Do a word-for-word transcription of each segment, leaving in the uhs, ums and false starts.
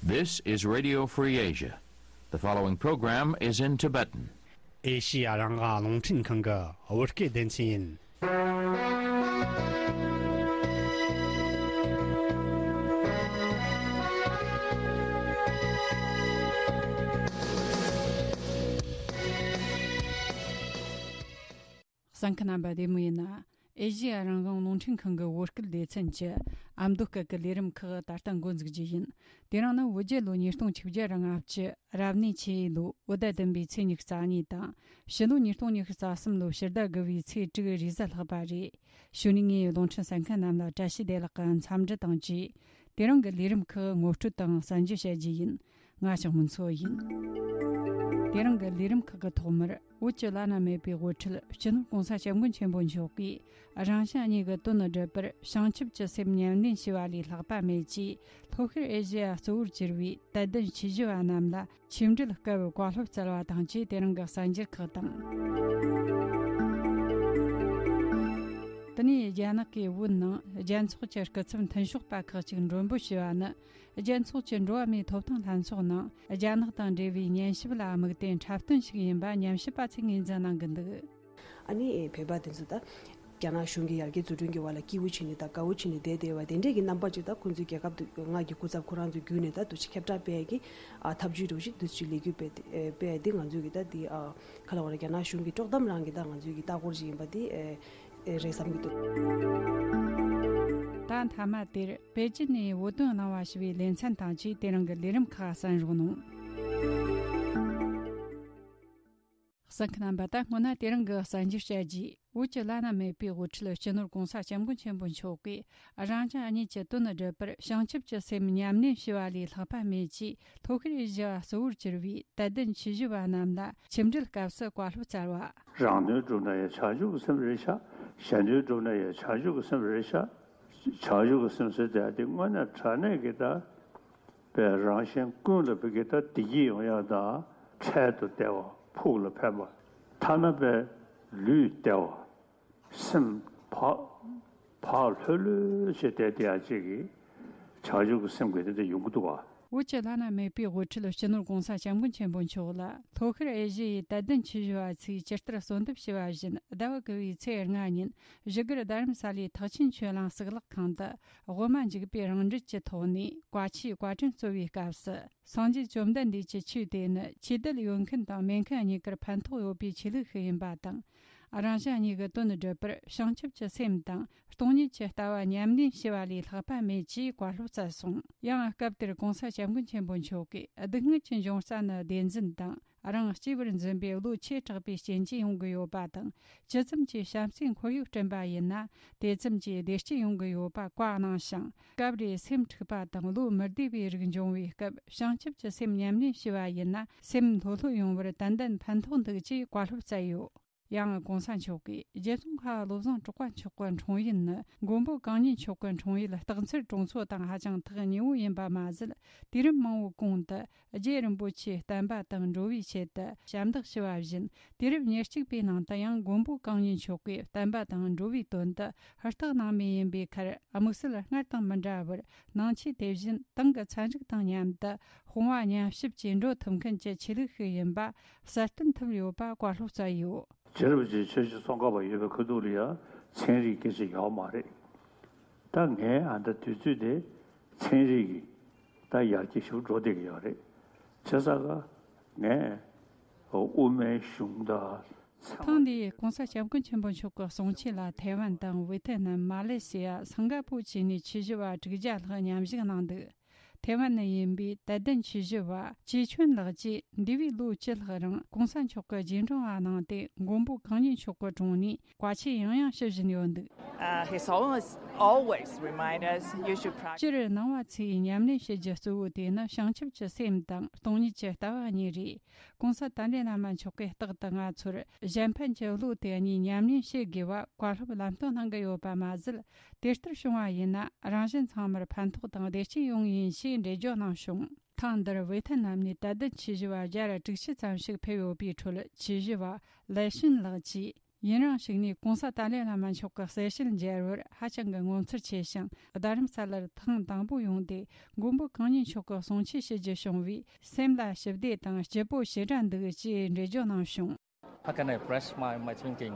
This is Radio Free Asia. The following program is in Tibetan. ཨེ་ཤི་ཡ་རང་དབང་རླུང་འཕྲིན་ཁང་གི་བོད་སྐད་སྡེ་ཚན་ཡིན། གསན་མཁན་རྣམ་པ་བདེ་མོ་ཡིན་ན། ཨེ་ཤི་ཡ་རང་དབང་རླུང་འཕྲིན་ཁང་གི་བོད་སྐད་སྡེ་ཚན་གྱི་ཨ་མདོ་སྐད་ཀྱི་ལས་རིམ་ཁག་ད་ལྟ་འགོ་འཛུགས་རྒྱུ་ཡིན། དེ་རིང་ནི་བོད་རྒྱལ་ལོ་ཉིས་སྟོང་ཆིག་བརྒྱ་ལྔ་བཅུ་རབ་གནས་ཆེ་ཡོས་ལོ་བོད་ཟླ་བདུན་པའི་ཚེས་ཉི་ཤུ་རྩ་གཉིས་དང་། ཕྱི་ལོ་ཉིས་སྟོང་ཉི་ཤུ་རྩ་གསུམ་ལོ་ཕྱི་ཟླ་དགུ་བའི་ཚེས་དྲུག་རེས་གཟའ་ལྷག་པ་རེད། གཞུག་ནས་ངས་རླུང་འཕྲིན་གསན་མཁན་རྣམས་ལ་བཀྲ་ཤིས་བདེ་ལེགས་ཀྱི་འཚམས་འདྲི་དང་བཅས། དེ་རིང་གི་ལས་རིམ་ཁག་ངོ་སྤྲོད་དང་གསན་རྒྱུ་བྱ་རྒྱུ་ཡིན། ང་ཞང་མུན་མཚོ་ཡིན། དེ་རིང་གི་ལས་རིམ་ཁག་གི་ཐོག་མར་བོད་ཀྱི་བླ་ན་མེད་པའི་དབུ་ཁྲིད་སྤྱི་ནོར་གོང་ས་སྐྱབས་མགོན་ཆེན་པོ་མཆོག་གིས་རང་གཞན་གཉིས་ཀྱི་དོན་སྒྲུབ་པར་བྱང་ཆུབ་ཀྱི་སེམས་ཉམས་ལེན་བྱས་པ་ལས་ལྷག་པ་མེད་ཅེས། ལྷོ་ཤར་ཨེ་ཤེ་ཡ་གཙོ་བོར་གྱུར་བའི་དད་ལྡན་ཆོས་ཞུ་བ་རྣམས་ལ་ཆིག་འགྲིལ་སྐབས་བཀའ་སློབ་སྩལ་བ་དང་བཅས། དེ་རིང་གི་གསར་འགྱུར་ཁག་དང་། དེ་ནས་རྒྱ་ནག་གི་བོད་ནང་རྒྱལ་ཚོགས་ཀྱི་སྐུ་ཚབ་མཐུན་ཕྱོགས་པ་ཁག་ཅིག་མགྲོན་འབོད་ཞུས་པ་ནི། རྒྱལ་ཚོགས་ཀྱི་འགྲོ་བ་མིའི་ཐོབ་ཐང་ལྷན་ཚོགས་ནང་རྒྱ་ནག་དང་འབྲེལ་བའི་ཉན་ཞིབ་ལ་དམིགས་ཏེ་འཁྲབ་སྟོན་ཞིག་ཡིན་པ་ཉམས་ཞིབ་པ་ཚོས་ངོས་འཛིན་གནང་གི་འདུག། ཨ་ནི་བོད་པ་དེ་ཚོ་ད་རྒྱ་ནག་གཞུང་གི་ཡར་རྒྱས་བཟོ་སྐྲུན་གྱི་བར་ལ་སྐྱིད་པོ་བྱས་ནས་ད་དགའ་བོ་བྱས་ནས་བསྡད་བསྡད་པ་དེ་འདྲས་ཀྱི་རྣམ་པ་ཅིག་ད་ཁོང་ཚོའི་རྒྱལ་ཁབ་ཏུ་མངའ་གི་སྐུ་ཚབ་ཁོ་རང་ཚོའི་བརྒྱུད་ནས་ད་དུ་ཅིག་ཁྱབ་བསྒྲགས་སྤེལ་གྱི་ཨ་ཐབས་ཇུས་འདྲ་བོ་ཞིག་དུ་ཅིག་ལས་འགུལ་སྤེལ་ཏེ་སྤེལ་ཏེ་ང་ཚོའི་གི་ད་དེ་ཨ་ག་ལ་བ་ར་རྒྱ་ནག་གཞུང་གི་དཀྲོག་གཏམ་རང་གི་ད་ང་ཚོའི་གི་ལྟ་སྐོར་ཅིག་ཡིན་པ་དེ་ཨེ་རེད་བསམ་གྱི་འདུག། ད་མཐའ་མ་དེར་པེ་ཅིན་ནས་བོད་དོན་གནང་བ་ཞུ་བའི་ལེ་ཚན་དང་བཅས་དེ་རིང་གི་ལས་རིམ་ཁག་གསན་རོགས་གནང་། གསན་མཁན་རྣམ་པ། ད་སྔོན་ན་དེ་རིང་གི་གསར་འགྱུར་བཤད་རྒྱུ། བོད་ཀྱི་བླ་ན་མེད་པའི་དབུ་ཁྲིད་སྤྱི་ནོར་༧གོང་ས་༧སྐྱབས་མགོན་ཆེན་པོ་མཆོག་གིས་རང་གཞན་གཉིས་ཀྱི་དོན་སྒྲུབ་པར་བྱང་ཆུབ་ཀྱི་སེམས་ཉམས་ལེན་བྱས་པ་ལས་ལྷག་པ་མེད་ཅེས་ལྷོ་ཤར་ཨེ་ཤེ་ཡ་གཙོ་བོར་གྱུར་བའི་དད་ལྡན་ཆོས་ཞུ་བ་རྣམས་ལ་ཆིག་འགྲིལ་སྐབས་སུ་བཀའ་སློབ་སྩལ་བ། རང་དོན་སྒྲུབ་ན་ཡང་བྱང་ཆུབ་ཀྱི་སེམས་རེད་ཤག། གཞན་དོན་སྒྲུབ་ན་ཡང་བྱང་ཆུབ་ཀྱི་སེམས་རེད་ཤག། བྱང་ཆུབ་ཀྱི་སེམས་ཟེར་དེ་དེ་དངོས་གནས་དྲང་གནས་ཀྱི་ད་པའི་རང་གཞན་ཀུན་ལ་བུ་གི་ད་བདེ་སྐྱིད་ཡོང་ཡག་དང་འཕྲལ་དུ་བདེ་བ་ཕུགས་ལ་ཕན་པ། ཐ་ན་པའི་ལུས་བདེ་བ། སེམས་བག་བག་ལྷོད་ལྷོད་བྱས་བསྡད་དེ་ཡག་ཅིག་གི་བྱང་ཆུབ་ཀྱི་སེམས་ཀྱི་དེ་འདྲ་ཡོང་གི་འདུག་བ། བོད་ཀྱི་བླ་ན་མེད་པའི་དབུ་ཁྲིད་སྤྱི་ནོར་༧གོང་ས་༧སྐྱབས་མགོན་ཆེན་པོ་མཆོག་ལ་ལྷོ་ཤར་ཨེ་ཤེ་ཡའི་དད་ལྡན་ཆོས་ཞུ་བ་ཚོས་ཇི་ལྟར་གསོལ་འདེབས་ཞུས་པ་བཞིན་ཟླ་བ་དགུ་བའི་ཚེས་ལྔ་ཉིན་བཞུགས་སྒར་རྡ་རམ་ས་ལའི་ཐེག་ཆེན་ཆོས་གླིང་གཙུག་ལག་ཁང་དུ་དབུ་མ་འཇུག་པའི་རང་འགྲེལ་གྱི་ཐོག་ནས་བཀའ་ཆོས་བཀའ་དྲིན་གསོལ་བའི་སྐབས་སུ། སངས་རྒྱས་བཅོམ་ལྡན་འདས་ཀྱི་ཆོས་དེ་ནི་ཆོས་དད་ཡོད་མཁན་དང་མེད་མཁན་གཉིས་ཀར་ཕན་ཐོགས་ཡོད་པའི་ཆོས་ལུགས་ཤིག་ཡིན་པ་དང་། རང་གཞན་གཉིས་ཀྱི་དོན་སྒྲུབ་པར་བྱང་ཆུབ་ཀྱི་སེམས་དང་སྟོང་ཉིད་ཀྱི་ལྟ་བ་ཉམས་ལེན་བྱས་པ་ལས་ལྷག་པ་མེད་ཅེས་བཀའ་སློབ་སྩལ་སོང་། ཡང་སྐབས་དེར་༧གོང་ས་༧སྐྱབས་མགོན་ཆེན་པོ་མཆོག་གིས་སྡུག་བསྔལ་གྱི་འབྱུང་རྩ་ནི་བདེན་འཛིན་དང་། རང་གཅེས་པར་འཛིན་པའི་བློ་ཆེ་དྲགས་པའི་རྐྱེན་གྱིས་ཡོང་གི་ཡོད་པ་དང་། ཇི་ཙམ་གྱིས་བྱམས་བརྩེའི་ཁོར་ཡུག་བསྐྲུན་པ་ཡིན་ན། དེ་ཙམ་གྱིས་བདེ་སྐྱིད་ཡོང་གི་ཡོད་པ་བཀའ་གནང་ཞིང་། སྐབས་རེ་སེམས་འཁྲུགས་པ་དང་བློ་མི་བདེ་བའི་རིགས་འབྱུང་བའི་སྐབས་བྱང་ཆུབ་ཀྱི་སེམས་ཉམས་ལེན་བྱས་པ་ཡིན་ན་སེམས་ལྷོད་ལྷོད་ཡོང་བར་ཏན་ཏན་ཕན་ཐོགས་འདུག་ཅེས་བཀའ་སློབ་སྩལ་ཡོད། ཡང་༧གོང་ས་མཆོག་གིས་རྗེ་ཙོང་ཁ་བ་བློ་བཟང་གྲགས་པ་མཆོག་གི་འཁྲུངས་ཡུལ་ནི་མགོན་པོ་གང་ཉིད་མཆོག་གི་འཁྲུངས་ཡུལ་སྟག་འཚེར་གྲོང་ཚོ་དང་ཧ་ཅང་ཐག་ཉེ་བོ་ཡིན་པ་མ་ཟད། དུས་རབས་མང་བོའི་གོང་དུ་རྗེ་རིན་པོ་ཆེའི་བསྟན་པ་དང་འགྲོ་བའི་ཆེད་དུ་ཞབས་འདེགས་ཞུ་བ་བཞིན། དུས་རབས་ཉེར་གཅིག་པའི་ནང་དུ་ཡང་མགོན་པོ་གང་ཉིད་མཆོག་གིས་བསྟན་པ་དང་འགྲོ་བའི་དོན་དུ་ཧུར་ཐག་གནང་མུས་ཡིན་པའི་ཁར། དམིགས་བསལ་སྔར་དང་མི་འདྲ་བར་ནང་ཆོས་དེ་བཞིན་ཏང་གི་ཚན་རིག་དང་མཉམ་དུ་དཔུང་བ་མཉམ་གཤིབ་ཀྱིས་འགྲོ་ཐུབ་མཁན་གྱི་ཆོས་ལུགས་ཤིག་ཡིན་པ་གསལ་སྟོན་ཐུབ་ཡོད་པ་བཀའ་སློབ་སྩལ་ཡོད། རྗེ་རིན་པོ་ཆེ་ཆོས་རྗེ་ཙོང་ཁ་པ་ཡོད་པའི་ཁ་ཐུག་ལ་ཡང་ཚན་རིག་སྐད་ཆ་ཡོད་མ་རེད། ད་ངའི་ཨ་ད་དུས་ཚོད་དེ་ཚན་རིག་གི་ད་ཡར་རྒྱས་ཞིག་འགྲོ་བསྡད་ཀྱི་ཡོད་རེད། བྱས་ཙང་ཀ་ངས་དབུ་མའི་གཞུང་དང་ཚང་མ། ཐེངས་འདིའི་༧གོང་ས་༧སྐྱབས་མགོན་ཆེན་པོ་མཆོག་གི་གསུང་ཆོས་ལ་ཐའེ་ཝན་དང་ཝེ་ཐེ་ནམ། མ་ལེ་ཤི་ཡ། སིང་ག་པུར་བཅས་ནས་ཆོས་ཞུ་བ་དྲུག་བརྒྱ་ལྷག་མཉམ་ཞུགས་གནང་འདུག། ཐའེ་ཝན་ནས་ཡིན་པའི་དད་ལྡན་ཆོས་ཞུ་བ་ཅེ་ཆོན་ལགས་ཀྱིས་འདས་པའི་ལོ་བཅུ་ལྷག་རིང་༧གོང་ས་མཆོག་གི་རྗེས་འབྲང་བ་གནང་སྟེ་མགོན་པོ་གང་ཉིད་མཆོག་གི་དྲུང་ནས་བཀའ་ཆོས་ཡང་ཡང་ཞུ་བཞིན་ཡོད་འདུག། Uh, he's always, always remind us you should practice. སྤྱིར་ནང་པ་ཚོས་ཉམས་ལེན་བྱེད་རྒྱུ་གཙོ་བོ་དེ་ནི་བྱང་ཆུབ་ཀྱི་སེམས་དང་སྟོང་ཉིད་ཀྱི་ལྟ་བ་གཉིས་རེད། གོང་ས་ཏཱ་ལའི་བླ་མ་མཆོག་གིས་རྟག་ཏུ་ང་ཚོར་གཞན་ཕན་གྱི་བློ་དེ་གཉིས་ཉམས་ལེན་བྱེད་དགོས་པ་བཀའ་སློབ་ལམ་སྟོན་གནང་གི་ཡོད་པ་མ་ཟད། དེ་ལྟར་བྱུང་བ་ཡིན་ན་རང་གཞན་ཚང་མར་ཕན་ཐོགས་དང་བདེ་སྐྱིད་ཡོང་ངེས་ཡིན་ཞེས་འགྲེལ་བརྗོད་གནང་བྱུང་། ཐེངས་འདིར་ཝེ་ཐེ་ནམ་ནས་དད་ལྡན་ཆོས་ཞུ་བ་བརྒྱ་དྲུག་ཅུ་ཙམ་ཞིག་ཕེབས་ཡོད་པའི་ཁྲོད་ཆོས་ཞུ་བ་ལའེ་ཤིན་ལགས་ཀྱིས། ཡུན་རིང་ཞིག་ནས་གོང་ས་ཏཱ་ལའི་བླ་མ་མཆོག་གི་གསལ་བཤད་མཇལ་བར་ཧ་ཅང་གི་ངོ་མཚར་ཆེ་ཞིང་། རྡ་རམ་ས་ལར་ཐེངས་དང་པོ་ཡོང་སྟེ་མགོན་པོ་གང་ཉིད་མཆོག་གི་གསུང་ཆོས་ཞུ་རྒྱུ་བྱུང་བས། སེམས་ལ་ཞི་བདེ་དང་སྐྱིད་པོ་ཞེ་དྲག་འདུག་ཅེས་འགྲེལ་བརྗོད་གནང་བྱུང་། How can I express my, my thinking?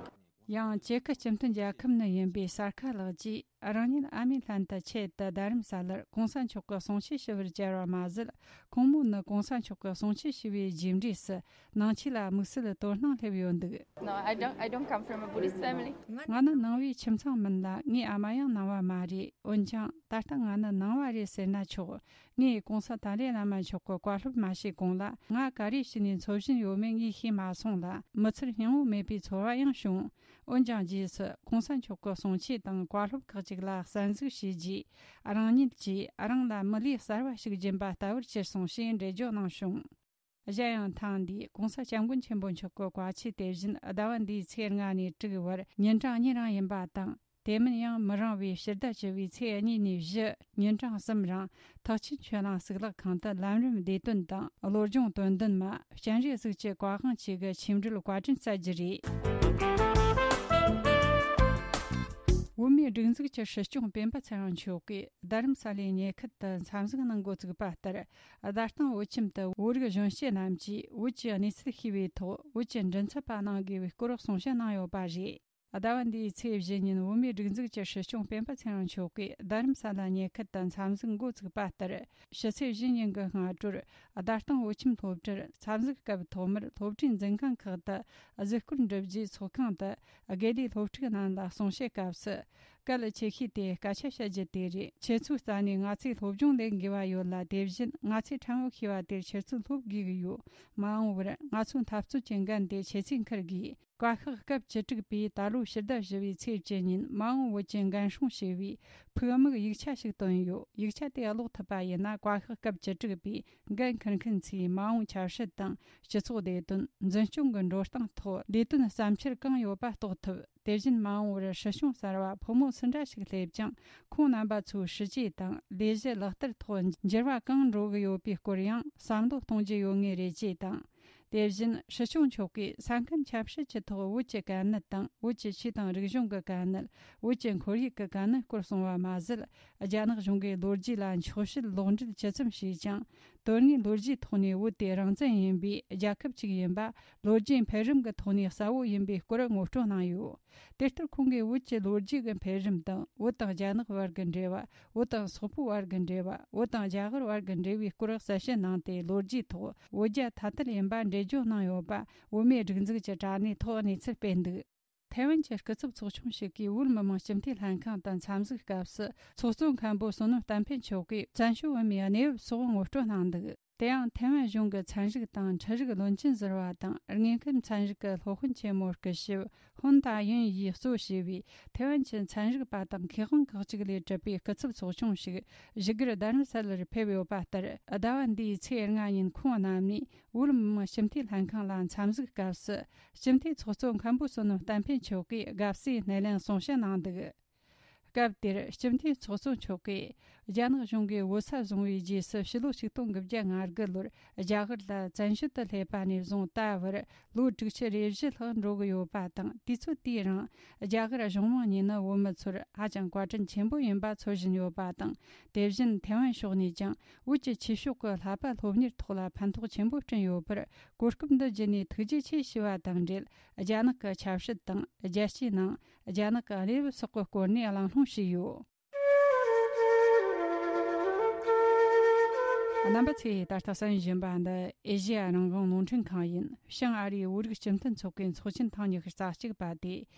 ཡང་ཅེ་ཁི་སྤྱི་མཐུན་རྒྱལ་ཁབ་ནས་ཡིན་པའི་སར་ཁ་ལགས་ཀྱིས། རང་ཉིད་ཨ་མའི་ལྷན་དུ་ཆེད་དུ་རྡ་རམ་ས་ལར་གོང་ས་མཆོག་གི་གསུང་ཆོས་ཞུ་བར་བཅར་བ་མ་ཟད། ཁོང་མོ་ནི་གོང་ས་མཆོག་གི་གསུང་ཆོས་ཞུ་བའི་རྗེས་འབྲས་སུ་ནང་ཆོས་ལ་དམིགས་བསལ་དོ་སྣང་སླེབས་ཡོད་འདུག No, I don't, I don't come from a Buddhist family. ང་ནི་ནང་པའི་ཁྱིམ་ཚང་མིན་ལ། ངའི་ཨ་མ་ཡང་ནང་པ་མ་རེད། འོན་ཀྱང་ད་ལྟ་ང་ནི་ནང་པ་རེད་ཟེར་ན་ཆོག་ངས་གོང་ས་ཏཱ་ལའི་བླ་མ་མཆོག་གི་བཀའ་སློབ་མ་ཤེས་གོང་ལ། ང་ག་རེ་བྱས་ནས་འཚོ་བཞིན་ཡོད་མེད་ངས་ཤེས་མ་སོང་ལ། མི་ཚེར་སྙིང་བོ་མེད་པའི་ཚོར་བ་ཡང་བྱུང་། འོན་ཀྱང་རྗེས་སུ་གོང་ས་མཆོག་གི་གསུང་ཆོས་དང་བཀའ་སློབ་ཁག་ཅིག་ལ་གསན་གཟིགས་བྱས་རྗེས། རང་ཉིད་ཀྱིས་རང་ལ་མི་ལུས་གསར་བ་ཞིག་སྦྱིན་པ་ལྟ་བུར་གྱུར་སོང་ཞེས་འགྲེལ་བརྗོད་གནང་བྱུང་། གཞན་ཡང་ཐེངས་འདིའི་གོང་ས་སྐྱབས་མགོན་ཆེན་པོ་མཆོག་གི་བཀའ་ཆོས་དེ་བཞིན་ཟླ་བ་འདིའི་ཚེས་ལྔ་ནས་དྲུག་བར་ཉིན་གྲངས་གཉིས་རིང་ཡིན་པ་དང་། དེ་མིན་ཡང་མི་རིང་བའི་ཕྱི་ཟླ་བཅུ་བའི་ཚེས་གཉིས་ནས་བཞི་ཉིན་གྲངས་གསུམ་རིང་ཐེག་ཆེན་ཆོས་གླིང་གཙུག་ལག་ཁང་དུ་ལམ་རིམ་བདེ་དོན་དང་བློ་སྦྱོང་དོན་ལྡན་མ་སྤྱན་རས་གཟིགས་ཀྱི་བཀའ་དབང་བཅས་ཀྱི་ཆོས་འབྲེལ་བཀའ་དྲིན་སྩལ་རྒྱུ་རེད། བོད་མིའི་སྒྲིག་འཛུགས་ཀྱི་སྲིད་སྐྱོང་སྤེན་པ་ཚེ་རིང་མཆོག་གིས་རྡ་རམ་ས་ལའི་ཉེ་ཁུལ་དུ་འཚམས་གཟིགས་གནང་འགོ་བཙུགས་པ་ལྟར། རྡ་སྟེང་བོད་ཁྱིམ་དུ་བོད་རིགས་གཞོན་སྐྱེས་རྣམས་ཀྱིས་བོད་ཀྱི་གནས་ཚུལ་ཤེས་པའི་ཐོག་བོད་ཀྱི་མགྲིན་ཚབ་པ་གནང་དགོས་པའི་སྐོར་གསུང་བཤད་གནང་ཡོད་པ་རེད། ཟླ་བ་འདིའི་ཚེས་བཞི་ཉིན་བོད་མིའི་སྒྲིག་འཛུགས་ཀྱི་སྲིད་སྐྱོང་སྤེན་པ་ཚེ་རིང་མཆོག་གིས་རྡ་རམ་ས་ལ་ཉེ་ཁུལ་དུ་འཚམས་གཟིགས་འགོ་བཙུགས་པ་ལྟར། ཕྱི་ཚེས་བཞི་ཉིན་གྱི་སྔ་དྲོར་རྡ་སྟེང་བོད་ཁྱིམ་སློབ་གྲྭར་འཚམས་གཟིགས་སྐབས། ཐོག་མར་སློབ་གྲྭའི་འཛིན་ཁང་ཁག་ཏུ་གཟིགས་སྐོར་འགྲུབ་རྗེས། ཚོགས་ཁང་དུ་དགེ་ལས་སློབ་ཕྲུག་རྣམས་ལ་གསུང་བཤད་སྐབས་སུ། གལ་ཆེ་ཤོས་དེ་སྐད་ཆ་བཤད་རྒྱུ་དེ་རེད། ཁྱེད་ཚོའི་རྩ་ནས་ང་ཚོས་སློབ་སྦྱོང་ལེན་དགོས་པ་ཡོད་ལ། དེ་བཞིན་ང་ཚོས་ཕྲན་བུ་ཤེས་པ་དེར་ཁྱེད་ཚོས་སློབ་དགོས་ཀྱི་ཡོད། མ་འོངས་པར་ང་ཚོའི་འཐབ་རྩོད་ཀྱི་འགན་དེ་ཁྱེད་ཚོས་འཁུར་དགོས། བཀའ་ཤག་སྐབས་བཅུ་དྲུག་པས་ད་ལོའི་ཕྱི་ཟླ་བཞི་བའི་ཚེས་བཅུ་ཉིན་མ་འོངས་བོད་ཀྱི་འགན་སྲུང་ཞེས་པའི་ཕུགས་དམིགས་ཡིག་ཆ་ཞིག་བཏོན་ཡོད། ཡིག་ཆ་དེ་ཀློག་ཐུབ་པ་ཡིན་ན། བཀའ་ཤག་སྐབས་བཅུ་དྲུག་པས་འགན་འཁུར་མཁན་ཚོས་མ་འོངས་ཆབ་སྲིད་དང་སྤྱི་ཚོགས་བདེ་དོན། འཛིན་སྐྱོང་གི་འགྲོ་སྟངས་ཐོག་ལས་དོན་བསམ་འཆར་གང་ཡོད་པ་རྟོགས་ཐུབ། དེ་བཞིན་མ་འོངས་པར་སྲིད་སྐྱོང་གསར་བ་ཕོ་མོ་སུ་འདྲ་ཞིག་སླེབས་ཀྱང་། ཁོང་རྣམ་པ་ཚོའི་སྲིད་ཇུས་དང་ལས་གཞི་ལག་བསྟར་ཐོག་འགྱུར་བ་གང་འགྲོ་གི་ཡོད་པའི་སྐོར་ཡང་བསམ་བློ་གཏོང་རྒྱུ་ཡོད་ངེས་རེད་ཅེས་དང་། དེ་བཞིན་སྲིད་སྐྱོང་མཆོག་གིས་ས་ཁམས་ཆབ་སྲིད་ཀྱི་ཐོག་བོད་ཀྱི་དཀའ་གནད་དང་། བོད་ཀྱི་ཆོས་དང་རིག་གཞུང་གི་དཀའ་གནད། བོད་ཀྱི་ཁོར་ཡུག་གི་དཀའ་གནད་སྐོར་གསུངས་པ་མ་ཟད། རྒྱ་ནག་གཞུང་གིས་ལོ་རྒྱུས་ལ་འཁྱོག་བཤད་ལོག་འགྲེལ་ཇི་ཙམ་བྱས་ཀྱང་། དོན་དངོས་ལོ་རྒྱུས་ཐོག་ནས་བོད་དེ་རང་བཙན་ཡིན་པའི་རྒྱལ་ཁབ་ཅིག་ཡིན་པ། ལོ་རྒྱུས་འཕེལ་རིམ་གྱི་ཐོག་ནས་གསལ་བོ་ཡིན་པའི་སྐོར་ངོ་སྤྲོད་གནང་ཡོད། དེ་ལྟར་ཁོང་གིས་བོད་ཀྱི་ལོ་རྒྱུས་ཀྱི་འཕེལ་རིམ་དང་། བོད་དང་རྒྱ་ནག་བར་གྱི་འབྲེལ་བ། བོད་དང་སོག་པོའི་བར་གྱི་འབྲེལ་བ། བོད་དང་རྒྱ་གར་བར་གྱི་འབྲེལ་བའི་སྐོར་གསལ་བཤད་གནང་སྟེ། ལོ་རྒྱུས་ཐོག་བོད་རྒྱ་ཐ་དད་ཡིན་པ་འགྲེལ་བརྗོད་གནང་ཡོད་པ། བོད་མིའི་སྒྲིག་འཛུགས་ཀྱི་དྲ་གནས་ཐོག་གནས་ཚུལ་སྤེལ་འདུག་ཐའེ་ཝན་གྱི་སྐུ་ཚབ་ཚོགས་ཆུང་ཞིག་གིས་བོད་མི་མང་སྤྱི་འཐུས་ལྷན་ཁང་དུ་འཚམས་གཟིགས་སྐབས་སུ། ཚོགས་གཙོ་མཁན་པོ་བསོད་ནམས་བསྟན་འཕེལ་མཆོག་གིས་བཙན་བྱོལ་བོད་མིའི་གནས་བབ་སོགས་ངོ་སྤྲོད་གནང་འདུག་དེ་ཡང་ཐའེ་ཝན་གཞུང་གི་ཚན་རིག་དང་འཕྲུལ་རིག་བློན་ཆེན་ཟུར་པ་དང་། དངོས་མཁོའི་ཚན་རིག་གི་སློབ་དཔོན་ཆེན་མོ་སྐུ་ཞབས་ཧོན་ཏཱ་ཡུན་ཡིས་གཙོ་བྱས་པའི་ཐའེ་ཝན་གྱི་ཚན་རིག་པ་དང་མཁས་དབང་ཁག་ཅིག་ལས་གྲུབ་པའི་སྐུ་ཚབ་ཚོགས་ཆུང་ཞིག་བཞུགས་སྒར་རྡ་རམ་ས་ལར་ཕེབས་ཡོད་པ་ལྟར། ཟླ་བ་འདིའི་ཚེས་ལྔ་ཉིན་ཁོང་རྣམ་གཉིས་བོད་མི་མང་སྤྱི་འཐུས་ལྷན་ཁང་ལ་འཚམས་གཟིགས་སྐབས་སུ། སྤྱི་འཐུས་ཚོགས་གཙོ་མཁན་པོ་བསོད་ནམས་བསྟན་འཕེལ་མཆོག་གིས་དགའ་བསུའི་སྣེ་ལེན་གསུང་བཤད་གནང་འདུག་སྐབས་དེར་སྤྱི་འཐུས་ཚོགས་གཙོ་མཆོག་གིས། རྒྱ་ནག་གཞུང་གིས་བོད་ས་བཟུང་བའི་རྗེས་སུ་ཕྱི་ལོ་ཆིག་སྟོང་དགུ་བརྒྱ་ང་དགུ་ལོར་རྒྱ་གར་ལ་བཙན་བྱོལ་དུ་སླེབས་པ་ནས་བཟུང་ད་བར་ལོ་དྲུག་ཅུ་རེ་བཞི་ལྷག་འགྲོ་གི་ཡོད་པ་དང་། དུས་ཚོད་དེའི་རིང་རྒྱ་གར་གཞུང་མང་གཉིས་ནི་བོད་མི་ཚོར་ཧ་ཅང་བཀའ་དྲིན་ཆེན་པོ་ཡིན་པ་འཚོལ་བཞིན་ཡོད་པ་དང་། དེ་བཞིན་ཐའེ་ཝན་ཕྱོགས་ནས་ཀྱང་བོད་ཀྱི་ཆོས་ཕྱོགས་ཀྱི་བསླབ་པ་སློབ་གཉེར་ཐོག་ལ་ཕན་ཐོགས་ཆེན་པོ་བསྐྲུན་ཡོད་པར་གོ་སྐབས་འདི་བརྒྱུད་ནས་ཐུགས་རྗེ་ཆེ་ཞུ་བ་དང་འབྲེལ། རྒྱ་ནག་གི་ཆབ་སྲིད་དང་། རྒྱལ་སྤྱིའི་ནང་རྒྱ་ནག་གི་གནས་བབ་སོགས་ཀྱི་སྐོར་ནས་གླེང་སློང་བྱས་ཡོད། རྣམ་པ་ཚོས་ད་ལྟ་གསན་བཞིན་པ་འདི་ཨེ་ཤེ་ཡ་རང་དབང་རླུང་འཕྲིན་ཁང་ཡིན། བྱང་ཨ་རིའི་བོད་རིགས་སྤྱི་མཐུན་ཚོགས་པའི་ཚོགས་ཆེན་ཐེངས་ཉི་ཤུ་རྩ་གཅིག་པ་དེ་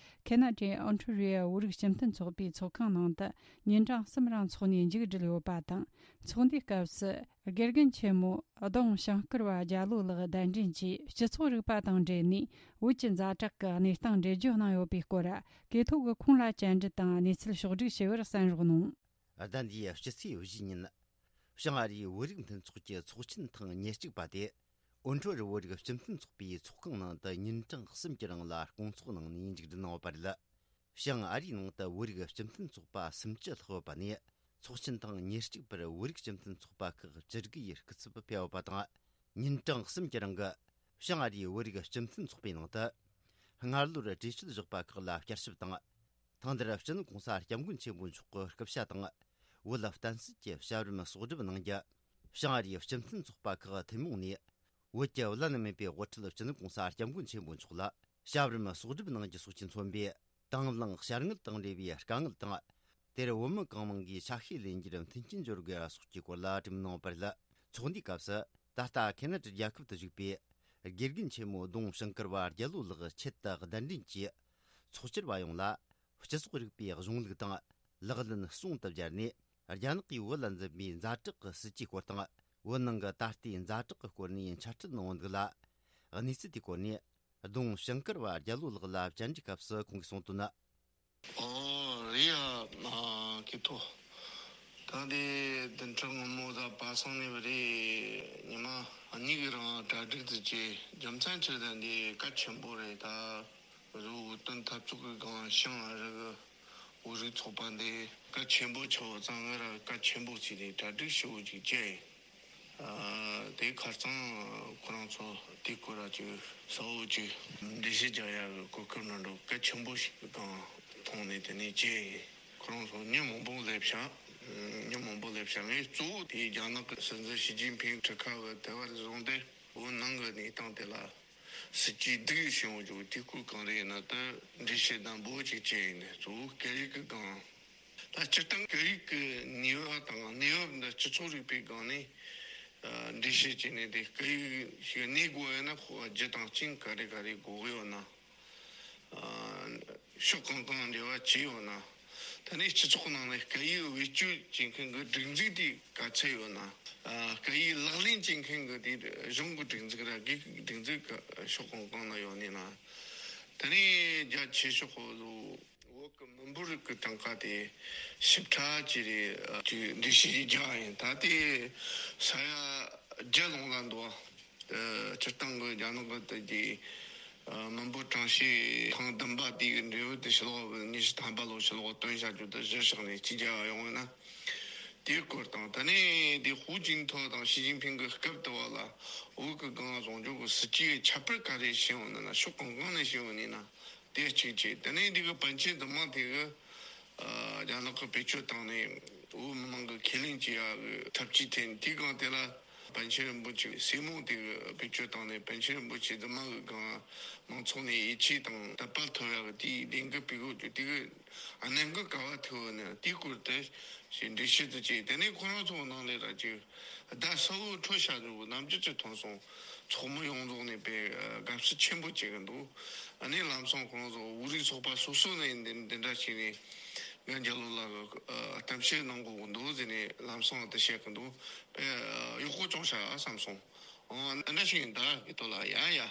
ཁེ་ན་ཌའི་ཨོན་ཊ་རི་ཡོ་བོད་རིགས་སྤྱི་མཐུན་ཚོགས་པའི་ཚོགས་ཁང་ནང་དུ་ཉིན་གྲངས་གསུམ་རིང་འཚོགས་ནས་མཇུག་བསྒྲིལ་ཡོད་པ་དང་། ཚོགས་འདུའི་སྐབས་སུ། དགེ་རྒན་ཆེན་མོ་ལྡོང་ཞང་བཀུར་བ་རྒྱ་ལོ་ལགས་གདན་འདྲེན་གྱིས་སྤྱི་ཚོགས་རིག་པ་དང་འབྲེལ་ནས་བོད་ཀྱི་ཛ་དྲག་གི་གནས་སྟངས་འགྲེལ་བརྗོད་གནང་ཡོད་པའི་སྐོར། གོ་ཐོས་ཀྱིས་ཁོང་ལ་བཅར་འདྲི་དང་གནས་ཚུལ་ཕྱོགས་བསྒྲིགས་བྱས་པར་གསན་རོགས་གནང་། ཟླ་འདིའི་སྤྱི་ཚེས་བཞི་ཉིན། བྱང་ཨ་རིའི་བོད་རིགས་མཐུན་ཚོགས་ཀྱི་ཚོགས་ཆེན་ཐེངས་ཉེར་གཅིག་པ་དེ། ཨོན་ཊ་རི་བོད་རིགས་སྤྱི་མཐུན་ཚོགས་པའི་ཚོགས་ཁང་ནང་དུ་ཉིན་གྲངས་གསུམ་གྱི་རིང་ལ་སྐོང་ཚོགས་གནང་ནས་མཇུག་སྒྲིལ་གནང་བ་རེད། བྱང་ཨ་རིའི་ནང་དུ་བོད་རིགས་སྤྱི་མཐུན་ཚོགས་པ་སུམ་ཅུ་ལྷག་ཡོད་པ་ནས། ཚོགས་ཆེན་ཐེངས་ཉེར་གཅིག་པར་བོད་རིགས་སྤྱི་མཐུན་ཚོགས་པ་ཁག་བཅུ་དགུ་ཡི་སྐུ་ཚབ་ཕེབས་ཡོད་པ་དང་། ཉིན་གྲངས་གསུམ་གྱི་རིང་གི་བྱང་ཨ་རིའི་བོད་རིགས་སྤྱི་མཐུན་ཚོགས་པའི་ནང་དུ། སྔ་ལོར་གྲོས་ཆོད་བཞག་པ་ཁག་ལ་བསྐྱར་ཞིབ་དང་། ཐེངས་འདིར་སྤྱི་ནོར་༸གོང་ས་༸སྐྱབས་མགོན་ཆེན་པོ་མཆོག་གི་སྐུ་ཕྱྭ་དང་། བོད་བསྟན་སྲིད་ཀྱི་བྱ་བར་གསོག་སྒྲུབ་གནང་རྒྱུ། བྱང་ཨ་རིའི་སྤྱི་མཐུན་ཚོགས་པ་ཁག་ཐུན་མོང་ནས། བོད་ཀྱི་བླ་ན་མེད་པའི་དབུ་ཁྲིད་སྤྱི་ནོར་༸གོང་ས་༸སྐྱབས་མགོན་ཆེན་པོ་མཆོག་ལ་བྱ་བར་གསོག་སྒྲུབ་གནང་རྒྱུ་སོགས་ཀྱིས་མཚོན་པའི་དང་བླངས་བྱ་དངོས་དང་འབྲེལ་བའི་དཀའ་ངལ་དང་། དེར་བོད་མི་གང་མང་གིས་ཆ་ཤས་ལེན་རྒྱུར་མཐུན་རྐྱེན་སྦྱོར་དགོས་པ་སོགས་ཀྱི་སྐོར་ལ་གྲོས་མོལ་གནང་བ་རེད། ཚོགས་འདུའི་སྐབས་སུ། ད་ལྟ་ཁེ་ན་ཌ་རྒྱལ་ཁབ་ཏུ་བཞུགས་པའི་དགེ་རྒན་ཆེན་མོ་ལྡོང་ཞིང་ཀར་བ་རྒྱལ་ལོ་ལགས་ཆེད་དུ་གདན་འདྲེན་གྱིས། ཚོགས་བཅར་བ་ཡོངས་ལ། སྤྱི་ཚོགས་རིག་པའི་གཞུང་ལུགས་དང་ལག་ལེན་ཟུང་དུ་སྦྱར་ནས། རྒྱ་ནག་གིས་བོད་ལ་འཛིན་པའི་ཛ་དྲག་གི་སྲིད་ཇུས་སྐོར་དང་། བོད་ནང་གི་ད་ལྟའི་ཛ་དྲག་གི་སྐོར་ནས་འཆད་ཁྲིད་གནང་བ་འདུག་ལ། གནས་ཚུལ་དེའི་སྐོར་ནས། ལྡོང་ཞིང་ཀར་བ་རྒྱལ་ལོ་ལགས་ལ་བཅར་འདྲིའི་སྐབས་སུ་ཁོང་གིས་གསུངས་དོན་ནི། ཨོ་རེད་ཡ། མ་ཁེ་ཐོ། ད་དེ་བདུན་ཕྲག་སྔོན་མོ་ད་པ་སངས་ནས་བ་རེད། ཉི་མ་གཉིས་ཀྱི་རིང་གྲ་སྒྲིག་དུ་བྱས། རྒྱུ་མཚན་ཆེ་ད་འདི་གལ་ཆེན་པོ་རེད་ད། བོད་དོན་འཐབ་རྩོད་ཀྱི་སྒང་ཞིང་ཨ་རི་གི་བོད་རིགས་ཚོགས་པ་འདི་གལ་ཆེན་པོ་ཆགས་ཙང་ང་རང་གལ་ཆེན་པོ་བྱས་ཏེ་གྲ་སྒྲིག་ཞེ་པོ་ཅིག་བྱས། ཨ་དེ་ཁར་ཚང་ཁོ་རང་ཚོ་དེ་སྐོར་ལ་ཅིག་གསལ་བོ་ཅིག་འགྲེལ་བཤད་རྒྱག་ཡག་གི་གོ་སྐབས་ནང་འགྲོ་གལ་ཆེན་པོ་ཞིག་གི་སྒང་མཐོང་ནས། དེ་ནས་ཅི་ཁོ་རང་ཚོ་མི་མང་པོ་སླེབས་ཤག་མི་མང་པོ་སླེབས་ཤག་ངས་གཙོ་བོ་དེ་རྒྱ་ནག་གི་སྲིད་འཛིན་ཞི་ཅིན་ཕིང་གྲུ་ཁ་བ་དེ་བར་བཟུང་སྟེ་བོད་ནང་གི་གནས་སྟངས་དེ་ལ་སྲིད་ཇུས་སྡུག་ཡོད་བྱུང་བའི་དེ་སྐོར་གང་རེད་ན། ད་འགྲེལ་བཤད་དང་འབོ་ཅིག་བྱས་ཡིན་ནས་གཙོ་བོ་སྐད་ཡིག་གི་སྒང་། ད་སྤྱིར་བཏང་སྐད་ཡིག་གི་ནུས་པ་དང་གནས་བབ་འདི་སྤྱི་ཚོགས་རིག་པའི་སྒང་ནས་ཨ་འགྲེལ་བཤད་བྱས་ནས། དེ་སྐད་ཡིག་ཞིག་གནས་དགོས་ཡོད་ན་ཁོ་རྒྱུ་དང་རྐྱེན་ག་རེ་ག་རེ་དགོས་ཡོད་ན། ཨ་ཕྱོགས་གང་གང་འབྲེལ་བ་བྱས་ཡོད་ན། ད་ནི་སྤྱི་ཚོགས་ནང་ནས་སྐད་ཡིག་བེད་སྤྱོད་བྱེད་མཁན་གྱི་སྒྲིག་འཛུགས་དེ་ག་ཚད་ཡོད་ན། ཨ་སྐད་ཡིག་ལག་ལེན་བྱེད་མཁན་གྱི་དེ་གཞུང་གི་སྒྲིག་འཛུགས་ར་སྒེར་གྱི་སྒྲིག་འཛུགས་ག་ཕྱོགས་གང་གང་ན་ཡོད་ནི་ན། ད་ནི་རྒྱ་ཆེ་ཤོས་ཁོ་ཚོ་བོད་ཀྱི་མི་འབོར་གྱི་གྲངས་ཀ་དེ་ཞིབ་ཕྲ་ཅིག་རེད། ཅིག་འགྲེལ་བཤད་ཅིག་རྒྱག་ཡིན། ད་དེ་ས་ཡ་བརྒྱད་ལོངས་ལ་འདུག་ཨ་སྤྱིར་བཏང་གི་རྒྱ་ནག་གི་དེ་གི་མི་འབོར་གྲངས་བཤེར་ཐེངས་བདུན་པ་དེ་གི་འབྲས་བུ་དེ་ཕྱི་ལོགས་ཉི་ཤུ་ཐམ་པ་ལོ་ཕྱི་ལོགས་བཏོན་བཞག་རྒྱུ་དེ་གཞིར་བཞག་ནས་ཅིག་རྒྱག་ཡོང་བ་ན། དེའི་སྐོར་དང་། ད་ནི་དེ་ཧུའུ་ཅིན་ཐའོ་དང་ཞི་ཅིན་ཕིང་གི་སྐབས་དུ་བ་ལ་བོད་ཀྱི་སྒང་བཟུང་སྐྱོང་གི་སྲིད་ཇུས་ཁྱད་པར་ག་རེ་བྱས་ཡོང་ན་ན། ཕྱོགས་གང་གང་ནས་བྱས་ཡོང་ནི་ན། དེ་གཅིག་བྱས། དེ་ནས་འདི་གི་པཎ་ཆེན་བདེ་མོ་དེ་གི་ཨ་རྒྱ་ནག་གི་བེད་སྤྱོད་བཏང་ནས་བོད་མི་མང་གི་ཁས་ལེན་བྱེད་ཡག་གི་ཐབས་ཇུས་འཐེན། དེའི་སྒང་དེ་ལ་པཎ་ཆེན་རིན་པོ་ཆེ་སྲས་མོ་དེ་གི་བེད་སྤྱོད་བཏང་ནས་པཎ་ཆེན་རིན་པོ་ཆེ་བདེ་མོ་གི་སྒང་མང་ཚོགས་ནས་ཡིད་ཆེས་དང་དད་པ་ཐོབ་ཡག་གི་དེའི་ལས་འགུལ་སྤེལ་དགོས་རྒྱུ་དེ་གི་གནད་འགག་ག་བ་ཐུག་ནས། དེའི་སྐོར་དེ་ཞིག་འགྲེལ་བཤད་དུ་བྱས། དེ་ནས་ཁོ་རང་ཚོ་ནང་ལས་ར་ཅིག་བརྡ་གསལ་བོ་འཕྲོད་བཞག་འདུག་ནམ་རྒྱུན་གྱི་མཐོང་སོང་། ཚོགས་མི་ཡོངས་རྫོགས་ནས་དཔེ་དགའ་བསུ་ཆེན་པོ་བྱེད་ཀྱི་འདུག་ཨ་ནི་ལམ་སང་ཁོང་ཚོ་བོད་རིགས་ཚོགས་པ་སོ་སོ་ནས་འདི་འདི་འདྲ་བྱས་ནས་ང་རྒྱ་ལོ་ལ་གཏམ་བཤད་གནང་དགོས་ཀྱི་འདུག་ཟེར་ནས་ལམ་སང་དེ་བཤད་ཀྱི་འདུག་དཔེ་གཡོག་པོ་བྱུང་ཤག་བསམ་སོང་། ཨོ་འདི་འདྲ་ཞིག་ཡིན་ད་གི་དོ་ལ་ཡ་ཡ།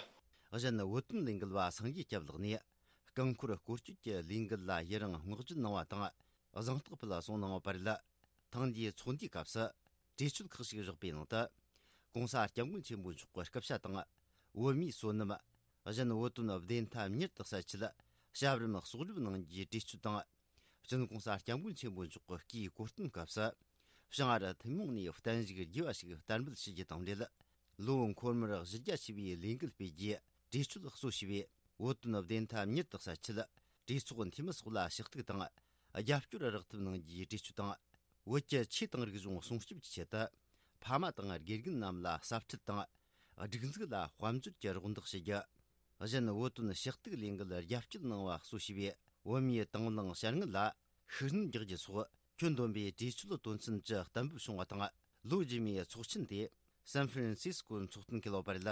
གཞན་བོད་དོན་ལས་འགུལ་བ་སངས་རྒྱས་སྐྱབས་ལགས་ནས། རྐང་འཁོར་སྐོར་སྐྱོད་ཀྱི་ལས་འགུལ་ལ་ཡི་རང་བསྔགས་བརྗོད་གནང་བ་དང་། གཟེངས་རྟགས་ཕུལ་གསུང་གནང་བ་རེད། ཐེངས་འདིའི་ཚོགས་འདུའི་སྐབས་སུ་གྲོས་ཆོད་ཁག་ཅིག་བཞག་པའི་ནང་དུ། ྋགོང་ས་ྋསྐྱབས་མགོན་ཆེན་པོ་མཆོག་གི་སྐུ་ཕྱྭ་དང་། བོད་མིའི་བསོད་ནམས། གཞན་བོད་དོན་བདེན་མཐའ་མྱུར་དུ་གསལ་ཆེད་བྱ་བ་རིམ་གསོག་སྒྲུབ་གནང་རྒྱུའི་གྲོས་ཆོད་དང་། སྤྱི་ནོར་༧གོང་ས་༧སྐྱབས་མགོན་ཆེན་པོ་མཆོག་གི་སྐུའི་གོ་སྟོན་སྐབས་སུ། བྱང་ཨ་རི་ཐུན་མོང་ནས་བརྟན་བཞུགས་རྒྱས་པ་ཞིག་བསྟར་འབུལ་ཞུ་རྒྱུ་དང་འབྲེལ། ལོ་འཁོར་མོར་གཞི་རྒྱ་ཆེ་བའི་ལས་འགུལ་སྤེལ་རྒྱུའི་གྲོས་ཆོད་གཙོ་བྱས་པའི་བོད་དོན་བདེན་མཐའ་མྱུར་དུ་གསལ་ཆེད། གྲོས་ཚོགས་འཐུས་མི་སོགས་ལ་ཞུ་གཏུག་དང་། རྒྱབ་སྐྱོར་རག་ཐབས་གནང་རྒྱུའི་གྲོས་ཆོད་དང་། བོད་ཀྱི་ཆོས་དང་རིག་གཞུང་སྲུང་སྐྱོབ་ཀྱི་ཆེད་དུ། ཕ་མ་དང་དགེ་རྒན་རྣམས་ལ་ཟབ་ཁྲིད་དང་། སྒྲིག་འཛུགས་ལ་དཔལ་འབྱོར་གྱི་རོགས་འདེགས་ཞུ་རྒྱུ། གཞན་བོད་དོན་ཞུ་གཏུག་ལས་འགུལ་རྒྱབ་སྐྱོར་གནང་བ་གཙོ་བྱས་པའི་བོད་མིའི་དང་བླངས་བྱ་དངོས་ལ་ཤུགས་སྣོན་རྒྱག་རྒྱུ་སོགས་ཁྱོན་བསྡོམས་པའི་གྲོས་ཆོད་དོན་ཚན་བཅུ་གཏན་འབེབས་བྱུང་བ་དང་། ལོ་རྗེས་མའི་ཚོགས་ཆེན་དེ་སན་ཧྥ་རན་སིས་ཀོའི་ཚོགས་ཐུན་འཁེལ་བ་རེད།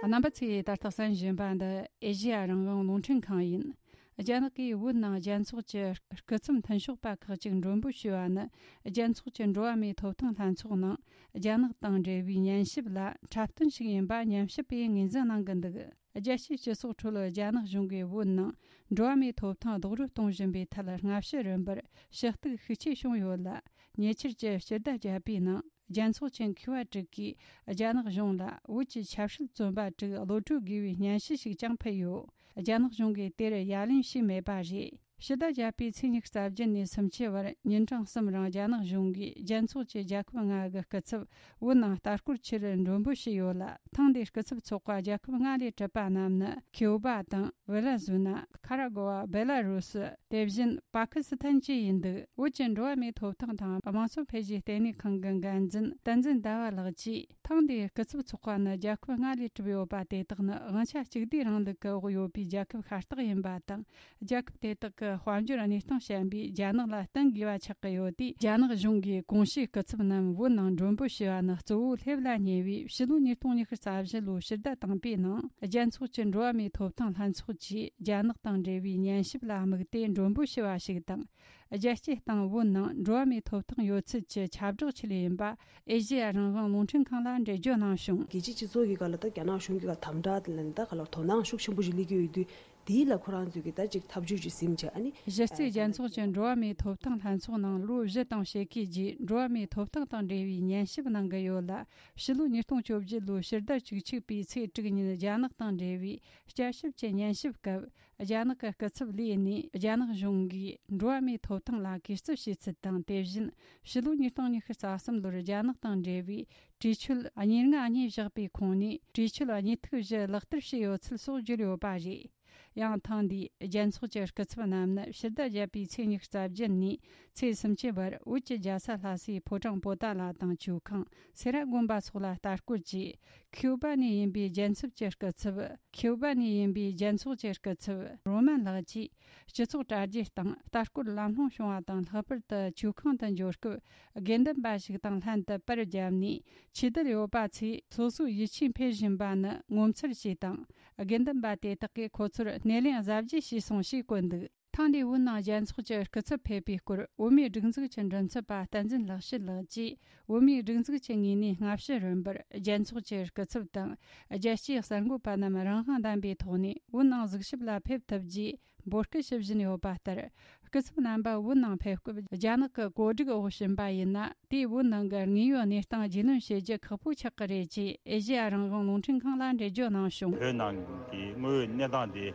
རྣམ་པ་ཚོས་ད་ལྟ་གསན་བཞིན་པ་འདི་ཨེ་ཤེ་ཡ་རང་དབང་རླུང་འཕྲིན་ཁང་ཡིན། རྒྱ་ནག་གིས་བོད་ནང་རྒྱལ་ཚོགས་ཀྱི་སྐུ་ཚབ་མཐུན་ཕྱོགས་པ་ཁག་ཅིག་མགྲོན་འབོད་ཞུས་པ་ནི། རྒྱལ་ཚོགས་ཀྱི་འགྲོ་བ་མིའི་ཐོབ་ཐང་ལྷན་ཚོགས་ནང་རྒྱ་ནག་དང་འབྲེལ་བའི་ཉན་ཞིབ་ལ་འཁྲབ་སྟོན་ཞིག་ཡིན་པ་ཉམས་ཞིབ་པས་ངོས་འཛིན་གནང་གི་འདུག་རྒྱལ་སྤྱིའི་སྤྱི་ཚོགས་ཁྲོད་རྒྱ་ནག་གཞུང་གིས་བོད་ནང་འགྲོ་བ་མིའི་ཐོབ་ཐང་རྡོག་རོལ་གཏོང་བཞིན་པའི་ཐད་སྔ་ཕྱི་རིམ་པར་ཞུ་གཏུག་ཤུགས་ཆེ་བྱུང་ཡོད་ལ། ཉེ་ཆར་གྱི་སྤྱི་ཟླ་བརྒྱད་པའི་ནང་། རྒྱལ་ཚོགས་ཀྱི་མཁས་པ་དྲུག་གིས་རྒྱ་ནག་གཞུང་ལ་བོད་ཀྱི་ཆབ་སྲིད་བཙོན་པ་དྲུག་གློད་གྲོལ་དགོས་པའི་སྙན་ཞུ་ཞིག་ཀྱང་ཕུལ་ཡོད། རྒྱ་ནག་གཞུང་གིས་དེར་ཡ་ལན་ཞུས་མེད་པ་རེད། ཕྱི་ཟླ་བརྒྱད་པའི་ཚེས་ཉི་ཤུ་རྩ་བརྒྱད་ནས་སུམ་ཅུ་བར་ཉིན་གྲངས་གསུམ་རིང་རྒྱ་ནག་གཞུང་གིས་རྒྱལ་ཚོགས་ཀྱི་རྒྱལ་ཁབ་ལྔ་གི་སྐུ་ཚབ་བོད་ནང་ལྟ་སྐོར་ཆེད་མགྲོན་འབོད་བྱས་ཡོད་ལ། ཐེངས་འདིའི་སྐུ་ཚབ་ཚོགས་པ་རྒྱལ་ཁབ་ལྔ་ལས་གྲུབ་པ་རྣམས་ནི། ཁིའུ་བ་དང་། ཝེ་ལ་ཟུ་ན། ཁ་ར་གོ་བ། སྦེ་ལ་རུ་སི། དེ་བཞིན་པ་ཀི་སི་ཐན་བཅས་ཡིན་འདུག་བོད་ཀྱི་འགྲོ་བ་མིའི་ཐོབ་ཐང་དང་དམངས་གཙོ་འཕེལ་རྒྱས་ལྟེ་གནས་ཁང་གི་འགན་འཛིན་བསྟན་འཛིན་ཟླ་བ་ལགས་ཀྱིས། ཐེངས་འདིའི་སྐུ་ཚབ་ཚོགས་པ་ནི་རྒྱལ་ཁབ་ལྔ་ལས་གྲུབ་ཡོད་པ་དེ་དག་ནི་དབང་ཆ་གཅིག་སྡུད་རིང་ལུགས་ཀྱི་འོག་ཡོད་པའི་རྒྱལ་ཁབ་ཤ་སྟག་ཡིན་པ་དང་། རྒྱལ་ཁབ་དེ་དག་གི་དཔལ་འབྱོར་གནས་སྟངས་བཤད་པའི་རྒྱ་ནག་ལ་བསྟུན་དགོས་པ་ཆགས་ཀྱི་ཡོད་དུས། རྒྱ་ནག་གཞུང་གིས་གོང་ཞུས་སྐུ་ཚབ་རྣམས་བོད་ནང་མགྲོན་འབོད་བྱས་པ་ནི་གཙོ་བོ་སླེབས་ལ་ཉེ་བའི་ཕྱི་ལོ་ཉིས་སྟོང་ཉི་ཤུ་རྩ་བཞི་ལོའི་ཕྱི་ཟླ་དང་པོའི་ནང་རྒྱལ་ཚོགས་ཀྱི་འགྲོ་བ་མིའི་ཐོབ་ཐང་ལྷན་ཚོགས་ཀྱིས་རྒྱ་ནག་དང་འབྲེལ་བའི་ཉན་ཞིབ་ལ་དམིགས་ཏེ་མགྲོན་འབོད་བྱས་པ་ཞིག་དང་། རྒྱལ་སྤྱིའི་སྟེང་བོད་ནང་འགྲོ་བ་མིའི་ཐོབ་ཐང་ཡོད་ཚུལ་གྱི་ཁྱབ་བསྒྲགས་ཆེད་ཡིན་པ་ཨེ་ཤེ་ཡ་རང་དབང་རླུང་འཕྲིན་ཁང་ལ་འགྲེལ་བརྗོད་གནང་བྱུང་། རྒྱལ་སྤྱིའི་སྤྱི་ཚོགས་ཀྱི་སྒང་ལ་ད་རྒྱ་ནག་གཞུང་གི་སྒང་དམ་དྲག་དེ་ལ་ནི་ད་ག་ལ་དོ་སྣང་ཤུགས་ཆེན་པོ་ཞིག་སླེབས་ཀྱི་ཡོད་དུས། དེའི་ལ་ཁོ་རང་ཚོས་ཀྱི་ད་ཅིག་ཐབས་ཇུས་ཅིག་ཟིན་བྱས། ཨ་ནི་གཞི་རྩའི་རྒྱལ་ཚོགས་ཀྱི་འགྲོ་བ་མིའི་ཐོབ་ཐང་ལྷན་ཚོགས་ནང་ལོ་བཞི་དང་ཕྱེད་ཀའི་རྗེས་འགྲོ་བ་མིའི་ཐོབ་ཐང་དང་འབྲེལ་བའི་ཉན་ཞིབ་གནང་གི་ཡོད་ལ། ཕྱི་ལོ་ཉིས་སྟོང་བཅོ་བརྒྱད་ལོའི་ཕྱི་ཟླ་བཅུ་གཅིག་པའི་ཚེས་དྲུག་ཉིན་རྒྱ་ནག་དང་འབྲེལ་བའི་བསྐྱར་ཞིབ་ཀྱི་ཉན་ཞིབ་སྐབས། རྒྱ་ནག་གི་སྐུ་ཚབ་ལིའུ་ནས་རྒྱ་ནག་གཞུང་གིས་འགྲོ་བ་མིའི་ཐོབ་ཐང་ལ་གུས་བརྩི་བྱས་ཚུལ་དང་། དེ་བཞིན་ཕྱི་ལོ་ཉིས་སྟོང་ཉི་ཤུ་རྩ་གསུམ་ལོར་རྒྱ་ནག་དང་འབྲེལ་བའི་གྲོས་ཆོད་ཉེར་ལྔ་གཉིས་བཞག་པའི་ཁོངས་ནས་གྲོས་ཆོད་གཉིས་ཐིག་བཞི་ལག་བསྟར་བྱས་ཡོད་ཚུལ་སོགས་བརྗོད་ཡོད་པ་རེད། ཡང་ཐེངས་འདིའི་རྒྱལ་ཚོགས་ཀྱི་སྐུ་ཚབ་རྣམས་ནི་ཕྱི་ཟླ་བརྒྱད་པའི་ཚེས་ཉི་ཤུ་རྩ་བརྒྱད་ནས་ཚེས་སུམ་ཅུ་བར་བོད་ཀྱི་རྒྱལ་ས་ལྷ་སའི་ཕོ་བྲང་པོ་ཏཱ་ལ་དང་ཇོ་ཁང་སེ་ར་དགོན་པ་སོགས་ལ་ལྟ་སྐོར་གྱིས། ཁིའུ་བ་ནས་ཡིན་པའི་རྒྱལ་ཚབ་ཀྱི་སྐུ་ཚབ། ཁིའུ་བ་ནས་ཡིན་པའི་རྒྱལ་ཚོགས་ཀྱི་སྐུ་ཚབ་རོ་མན་ལགས་ཀྱིས། སྤྱི་ཚོགས་དྲ་རྒྱའི་སྟེང་ལྟ་སྐོར་ལམ་ལྷོང་བྱུང་བ་དང་། ལྷག་པར་དུ་ཇོ་ཁང་དུ་འབྱོར་སྐབས་དགེ་འདུན་པ་ཞིག་དང་ལྷན་དུ་པར་བརྒྱབ་ནས། ཆོས་དད་ཡོད་པ་ཚོས་སོ་སོའི་ཡིད་ཆེས་འཕེལ་བཞིན་པ་ནི་ངོ་མཚར་ཞེས་དང་། དགེ་འདུན་པ་དེ་དག་གིས་ཁོ་ཚོར་སྣེ་ལེན་གཟབ་རྒྱས་བྱས་སོང་ཞེས་བཀོད་འདུག་ཐེངས་འདིའི་བོད་ནང་རྒྱལ་ཚོགས་ཀྱི་སྐུ་ཚབ་ཕེབས་པའི་སྐོར། བོད་མིའི་སྒྲིག་འཛུགས་ཀྱི་མགྲིན་ཚབ་པ་བསྟན་འཛིན་ལེགས་བཤད་ལགས་ཀྱིས། བོད་མིའི་སྒྲིག་འཛུགས་ཀྱི་ངོས་ནས་སྔ་ཕྱི་རིམ་པར་རྒྱལ་ཚོགས་ཀྱི་སྐུ་ཚབ་དང་། རྒྱལ་སྤྱིའི་གསར་འགོད་པ་རྣམས་རང་དབང་ལྡན་པའི་ཐོག་ནས་བོད་ནང་གཟིགས་ཞིབ་ལ་ཕེབས་ཐུབ་རྒྱུའི་འབོད་སྐུལ་ཞུ་བཞིན་ཡོད་པ་ལྟར། སྐུ་ཚབ་རྣམ་པ་བོད་ནང་ཕེབས་སྐབས་རྒྱ་ནག་གི་བཀོད་སྒྲིག་འོག་ཕྱིན་པ་ཡིན་ན། དེས་བོད་ནང་གི་དངོས་ཡོད་གནས་སྟངས་རྒྱུས་ལོན་བྱེད་རྒྱུ་ཁག་པོ་ཆགས་ཀྱི་རེད་ཅེས་ཨེ་ཤེ་ཡ་རང་དབང་རླུང་འཕྲིན་ཁང་ལ་འགྲེལ་བརྗོད་གནང་བྱུང་། བོད་ནང་གི་དངོས་ཡོད་གནས་སྟངས་དེ་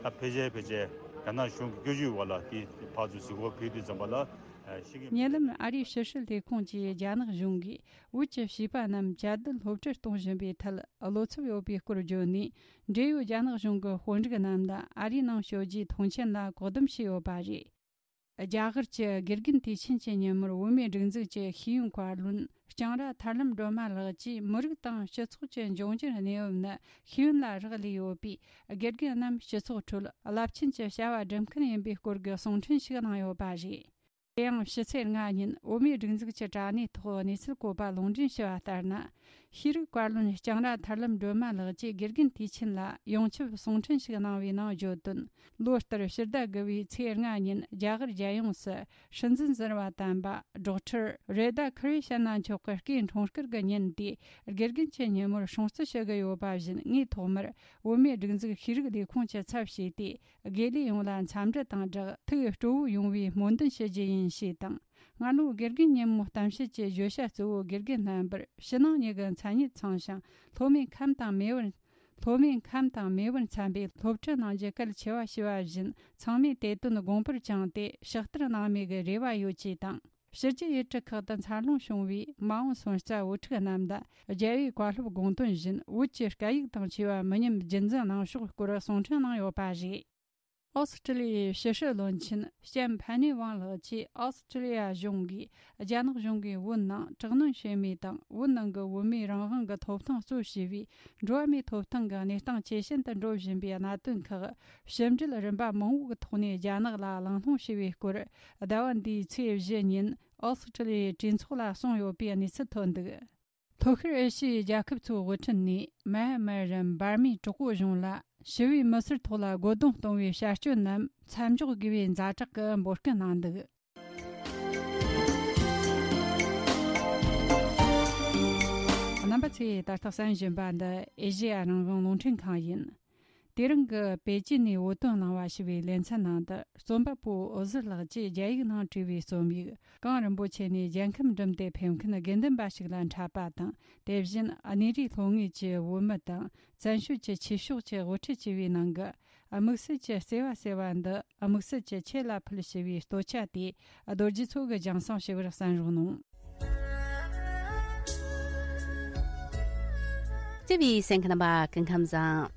ད་ཕལ་ཆེར་ཕལ་ཆེར་རྒྱ་ནག་གཞུང་གི་བཀོད་ཇུས་འོག་ལ་དེ་ཕར་ཚུར་གཟིགས་སྐོར་ཕེབས་དུས་ཙམ་པ་ལ་ཤེས་ཀྱི་མེད། ཉེ་ལམ་ཨ་རིའི་ཕྱི་སྲིད་ལས་ཁུངས་ཀྱིས་རྒྱ་ནག་གཞུང་གིས་བོད་ཀྱི་བྱིས་པ་རྣམས་བཅའ་སྡོད་སློབ་ཁྲིད་གཏོང་བཞིན་པའི་ཐད་བློ་འཚབ་ཡོད་པའི་སྐོར་བརྗོད་ནས། འབྲེལ་ཡོད་རྒྱ་ནག་གཞུང་གི་དཔོན་རིགས་རྣམས་ལ་ཨ་རིའི་ནང་བསྐྱོད་རྒྱུའི་མཐོང་མཆན་ལ་བཀག་སྡོམ་བྱས་ཡོད་པ་རེད། རྒྱ་གར་གྱི་དགེ་རྒན་དུས་ཆེན་གྱི་ཉིན་མོར་བོད་མིའི་སྒྲིག་འཛུགས་ཀྱི་ཤེས་ཡོན་བཀའ་བློན་ལྕང་ར་ཐར་ལམ་སྒྲོལ་མ་ལགས་ཀྱིས། མི་རིགས་དང་སྤྱི་ཚོགས་ཀྱི་འབྱུང་འགྱུར་གནས་བབ་ནི་ཤེས་ཡོན་ལ་རག་ལས་ཡོད་པས། དགེ་རྒན་རྣམས་སྤྱི་ཚོགས་ཁྲོད་རླབས་ཆེན་གྱི་བྱ་བ་སྒྲུབ་མཁན་ཡིན་པའི་སྐོར་གྱི་གསུང་འཕྲིན་ཞིག་གནང་ཡོད་པ་རེད། དེ་ཡང་ཕྱི་ཚེས་ལྔ་ཉིན་བོད་མིའི་སྒྲིག་འཛུགས་ཀྱི་དྲ་གནས་ཐོག་གནས་ཚུལ་བཀོད་པ་ལུང་འདྲེན་ཞུས་པ་ལྟར་ན། ཤེས་རིག་བཀའ་བློན་ལྕང་ར་ཐར་ལམ་སྒྲོལ་མ་ལགས་ཀྱིས་དགེ་རྒན་དུས་ཆེན་ལ་ཡོངས་ཁྱབ་གསུང་འཕྲིན་ཞིག་གནང་བའི་ནང་བརྗོད་དོན། ལོ་ལྟར་ཕྱི་ཟླ་དགུ་བའི་ཚེས་ལྔ་ཉིན་རྒྱ་གར་རྒྱལ་ཡོངས་སུ་སྲིད་འཛིན་ཟུར་པ་དམ་པ་ཌོག་ཊར་རེ་ད་ཁི་རི་ཤ་ན་མཆོག་གི་སྐུའི་འཁྲུངས་སྐར་གྱི་ཉིན་དེ། དགེ་རྒན་གྱི་ཉིན་མོར་སྲུང་བརྩི་ཞུ་གི་ཡོད་པ་བཞིན། ངས་ཐོག་མར་བོད་མིའི་སྒྲིག་འཛུགས་ཤེས་རིག་ལས་ཁུངས་ཀྱི་ཚབ་བྱས་ཏེ། དགེ་ལས་ཡོངས་ལ་འཚམས་འདྲི་དང་སྦྲགས། ཐུགས་སྤྲོ་བོ་ཡོང་བའི་སྨོན་འདུན་ཞུ་རྒྱུ་ཡིན་ཞེས་དང་། སྔ་ལོ་དགེ་རྒན་ཉིན་མོ་གཏམ་བཤད་ཀྱི་བརྗོད་བྱ་གཙོ་བོ། དགེ་རྒན་རྣམ་པར་ཕྱི་ནང་གཉིས་ཀྱི་མཚན་ཉིད་ཚང་ཞིང་། སློབ་མའི་ཁམས་དང་མེས་པོར། སློབ་མའི་ཁམས་དང་མེས་པོར་འཚམ་པའི་སློབ་ཁྲིད་གནང་རྒྱུ་གལ་ཆེ་བ་ཞེས་པ་བཞིན། ཚང་མས་དེ་དོན་དགོངས་པར་བཅངས་ཏེ་ཕྱག་བསྟར་གནང་མེད་ཀྱི་རེ་བ་ཡོད་ཅེས་དང་། ཕྱི་རྒྱལ་ཡུལ་གྲུ་ཁག་ཏུ་འཚར་ལོངས་བྱུང་བའི་མ་འོངས་སོན་རྩ་བུ་ཕྲུག་རྣམས་ལ། རྒྱལ་བའི་བཀའ་སློབ་དགོངས་དོན་བཞིན། བོད་ཀྱི་སྐད་ཡིག་དང་བཅས་པ་མི་ཉམས་རྒྱུན་འཛིན་གནང་ཕྱོགས་སྐོར་གསུང་འཕྲིན་གནང་ཡོད་པ་རེད། ཨོ་སི་ཀྲི་ལི་ཡའི་ཕྱི་སྲིད་བློན་ཆེན་ལྕམ་ཕན་ནི་ཝང་ལགས་ཀྱིས། ཨོ་སི་ཀྲི་ལི་ཡ་གཞུང་གིས་རྒྱ་ནག་གཞུང་གིས་བོད་ནང་དྲག་གནོན་བྱེད་མུས་དང་། བོད་ནང་གི་བོད་མིའི་རང་དབང་གི་ཐོབ་ཐང་གཙོ་བྱས་པའི་འགྲོ་བ་མིའི་ཐོབ་ཐང་གི་གནས་སྟངས་ཇེ་ཞན་དུ་འགྲོ་བཞིན་པའི་གནད་དོན་ཁག་ཕྱི་འབྲེལ་རིམ་པ་མང་པོའི་ཐོག་ནས་རྒྱ་ནག་ལ་གླེང་སློང་བྱས་པའི་སྐོར། ཟླ་བ་འདིའི་ཚེས་བཞི་ཉིན་ཨོ་སི་ཀྲི་ལི་ཡའི་གྲོས་ཚོགས་ལ་གསུངས་ཡོད་པའི་གནས་ཚུལ་ཐོན་འདུག་ལྷོ་ཤར་ཨེ་ཤི་ཡའི་རྒྱལ་ཁབ་ཚོའི་དབུ་ཁྲིད་ནས། མཱ་མཱ་རམ་འབར་མའི་གྲོགས་པོ་གཞུང་ལ་ཞི་བའི་མི་སེར་ཐོག་ལ་རྒོལ་རྡུང་གཏོང་བའི་བྱ་སྤྱོད་རྣམས་མཚམས་འཇོག་དགོས་པའི་ཛ་དྲག་གི་འབོད་སྐུལ་གནང་འདུག་རྣམ་པ་ཚོས་ད་ལྟ་གསན་བཞིན་པ་འདི་ཨེ་ཤེ་ཡ་རང་དབང་རླུང་འཕྲིན་ཁང་ཡིན། དེ་རིང་གི་པེ་ཅིན་ནས་བོད་དོན་གླེང་བ་ཞེས་པའི་ལེ་ཚན་ནང་དུ། རྩོམ་པ་པོ་འོད་ཟེར་ལགས་ཀྱིས་རྒྱ་ཡིག་ནང་བྲིས་པའི་རྩོམ་ཡིག་གངས་རིན་པོ་ཆེ་ནས་རྒྱལ་ཁམས་འགྲིམས་ཏེ་ཕེབས་མཁན་དགེ་འདུན་པ་ཞིག་ལ་འཕྲད་པ་དང་། དེ་བཞིན་གནས་རིའི་ལྷོ་ངོས་ཀྱི་བོད་མི་དང་བཙན་བྱོལ་གྱི་ཆོས་ཕྱོགས་ཀྱི་དབུ་ཁྲིད་བཅས་པའི་ནང་གི་ དམིགས་བསལ་གྱི་བརྩེ་བ་ཟེར་བ་འདི་དམིགས་བསལ་གྱི་ཁྱེད་ལ་ཕུལ་ཞེས་པའི་སྟོད་ཆ་དེ་རྡོ་རྗེ་མཚོ་གིས་སྦྱང་བསྲིང་ཞུ་བར་གསན་རོགས་གནང་། བརྩེ་བའི་གསན་མཁན་རྣམ་པ་སྐུ་ཁམས་བཟང་།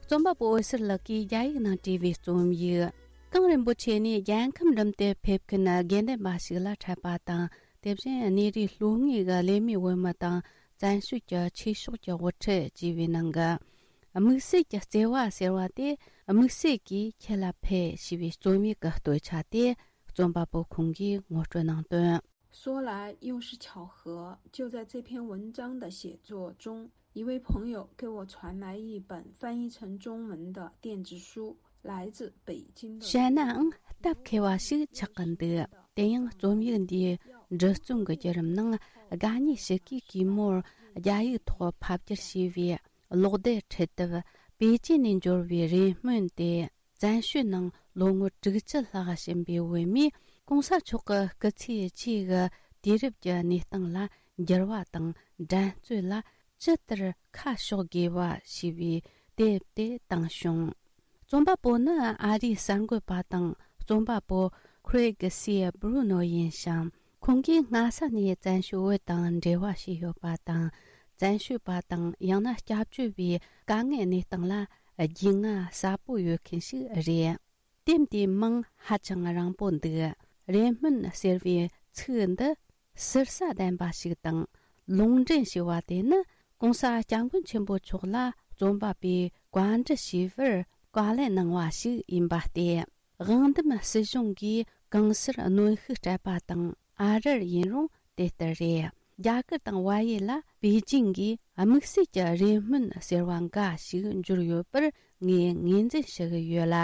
རྩོམ་པ་པོ་འོད་ཟེར་ལགས་ཀྱིས་རྒྱ་ཡིག་ནང་བྲིས་པའི་རྩོམ་ཡིག་གངས་རིན་པོ་ཆེ་ནས་རྒྱལ་ཁམས་འགྲིམ་དུ་ཕེབས་མཁན་དགེ་འདུན་པ་ཞིག་ལ་འཕྲད་པ་དང་། དེ་བཞིན་གནས་རིའི་ལྷོ་ངོས་ཀྱི་ལས་མིའི་བོད་མི་དང་བཙན་བྱོལ་གྱི་ཆོས་ཕྱོགས་ཀྱི་དབུ་ཁྲིད་བཅས་པའི་ནང་གི་དམིགས་བསལ་གྱི་བརྩེ་བ་ཟེར་བ་དེ་དམིགས་བསལ་གྱིས་ཁྱེད་ལ་ཕུལ་ཞེས་པའི་རྩོམ་ཡིག་གི་སྟོད་ཆ་དེ་རྩོམ་པ་པོ་ཁོང་གིས་ངོ་སྤྲོད་གནང་དོན། 说来又是巧合，就在这篇文章的写作中，一位朋友给我传来一本翻译成中文的电子书，来自北京的。 བཤད་ནའང་སྟབས་མཁས་པ་ཞིག་ཆགས་ཀྱི་འདུག་དེ་ཡང་རྩོམ་ཡིག་འདིའི་འབྲི་རྩོམ་གྱི་བརྒྱུད་རིམ་ནང་དགའ་ཉེ་ཞིག་གིས་གུས་མོར་རྒྱ་ཡིག་ཐོག་ཕབ་བསྒྱུར་བྱས་པའི་གློག་དེབ་འཕྲུལ་དེབ་པེ་ཅིན་ནས་འབྱོར་བའི་རེ་སྨོན་དེ། བཙན་བྱོལ་ནང་ལོ་ངོ་དྲུག་ཅུ་ལྷག་ཕྱིན་པའི་བོད་མིས་གོང་ས་མཆོག་གི་སྐུ་ཚེ་གཅིག་གི་དུས་རབས་ཀྱི་གནས་སྟངས་ལ་འགྱུར་བ་དང་འགྲན་རྩོད་ལ་ཇི་ལྟར་ཁ་ཕྱོགས་དགོས་པ་ཞེས་པའི་དེབ་དེ་བཏང་བྱུང་། རྩོམ་པ་པོ་ནི་ཨ་རིའི་གསར་འགོད་པ་དང་རྩོམ་པ་པོ་ཁུ་རེ་གི་སི་བྷུ་རུ་ནོ་ཡིན་ཞིང་། ཁོང་གིས་སྔ་ས་ནས་བཙན་བྱོལ་བོད་དང་འབྲེལ་བ་བྱས་ཡོད་པ་དང་། བཙན་བྱོལ་བ་དང་ཡང་ན་སྐྱབས་བཅོལ་བའི་དཀའ་ངལ་གནས་སྟངས་ལ་རྒྱུས་མངའ་ཟབ་པོ་ཡོད་མཁན་ཞིག་རེད། དེབ་འདིའི་མིང་ཧ་ཅང་རིང་པོ་འདུག་རེ་སྨོན་ཟེར་བའི་ཚིག་འདི་ཟུར་ཟ་ལྡན་པ་ཞིག་དང་། ལུང་འདྲེན་ཞེས་པ་དེ་ནི་གོང་ས་སྐྱབས་མགོན་ཆེན་པོ་མཆོག་ལ་རྩོམ་པ་པོས་བཀའ་འདྲི་ཞུས་པར་བཀའ་ལན་གནང་བ་ཞིག་ཡིན་པ་སྟེ། དབང་འདུམ་སྲིད་གཞུང་གིས་གང་སར་གནོན་ཤུགས་སྤྲད་པ་དང་ཨ་རིར་ཡིན་རུང་དེ་ལྟར་རེད། རྒྱ་གར་དང་བལ་ཡུལ་ལ་པེ་ཅིང་གིས་དམིགས་བསལ་གྱི་རེ་སྨོན་ཟེར་བ་འགའ་ཞིག་འབྱོར་ཡོད་པར་ངས་ངོས་འཛིན་ཞུ་གི་ཡོད་ལ།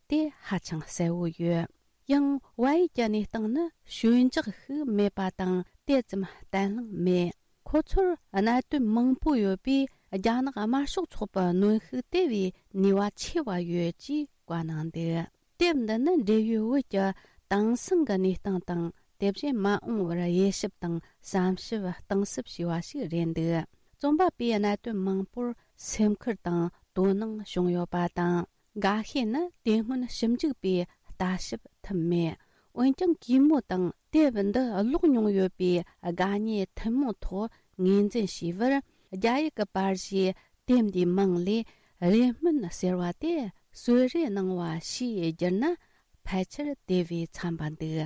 དེ་ཧ་ཅང་གསལ་བོ་ཡོད། ཡང་བལ་ཡུལ་གྱི་གནས་སྟངས་ནི་ཞོད་འཇགས་ཤིག་མེད་པ་དང་དེ་ཙམ་བརྟན་ལྷིང་མེད། ཁོ་ཚོར་གནད་དོན་མང་པོ་ཡོད་པས་རྒྱ་ནག་དམར་ཤོག་ཚོགས་པའི་གནོན་ཤུགས་དེ་བས་ནུས་པ་ཆེ་བ་ཡོད་ཅེས་བཀའ་གནང་འདུག་དེབ་འདི་ནི་འབྲེལ་ཡོད་བོད་ཀྱི་དེང་སང་གི་གནས་སྟངས་དང་དེ་བཞིན་མ་འོངས་པར་དབྱེ་ཞིབ་དང་བསམ་ཞིབ་གཏིང་ཟབ་བྱས་པ་ཞིག་རེད་འདུག་རྩོམ་པ་པོས་གནད་དོན་མང་པོར་སེམས་ཁུར་དང་དོ་སྣང་བྱུང་ཡོད་པ་དང་། འགའ་ཤས་ནི་དེ་སྔོན་ཞིབ་འཇུག་པས་ལྟ་ཞིབ་ཐུབ་མེད། འོན་ཀྱང་གུས་མོ་དང་དེབ་འདི་ཀློག་མྱོང་ཡོད་པའི་དགའ་ཉེ་ཐུན་མོང་ཐོག་ངོས་འཛིན་བྱས་པར། རྒྱ་ཡིག་གི་པར་གཞས་དེབ་འདིའི་མིང་ལས་རེ་སྨོན་ཟེར་བ་དེ་གསོལ་རས་གནང་བ་ཞེས་བསྒྱུར་ན་ཕལ་ཆེར་དེ་བས་འཚམ་པ་འདུག་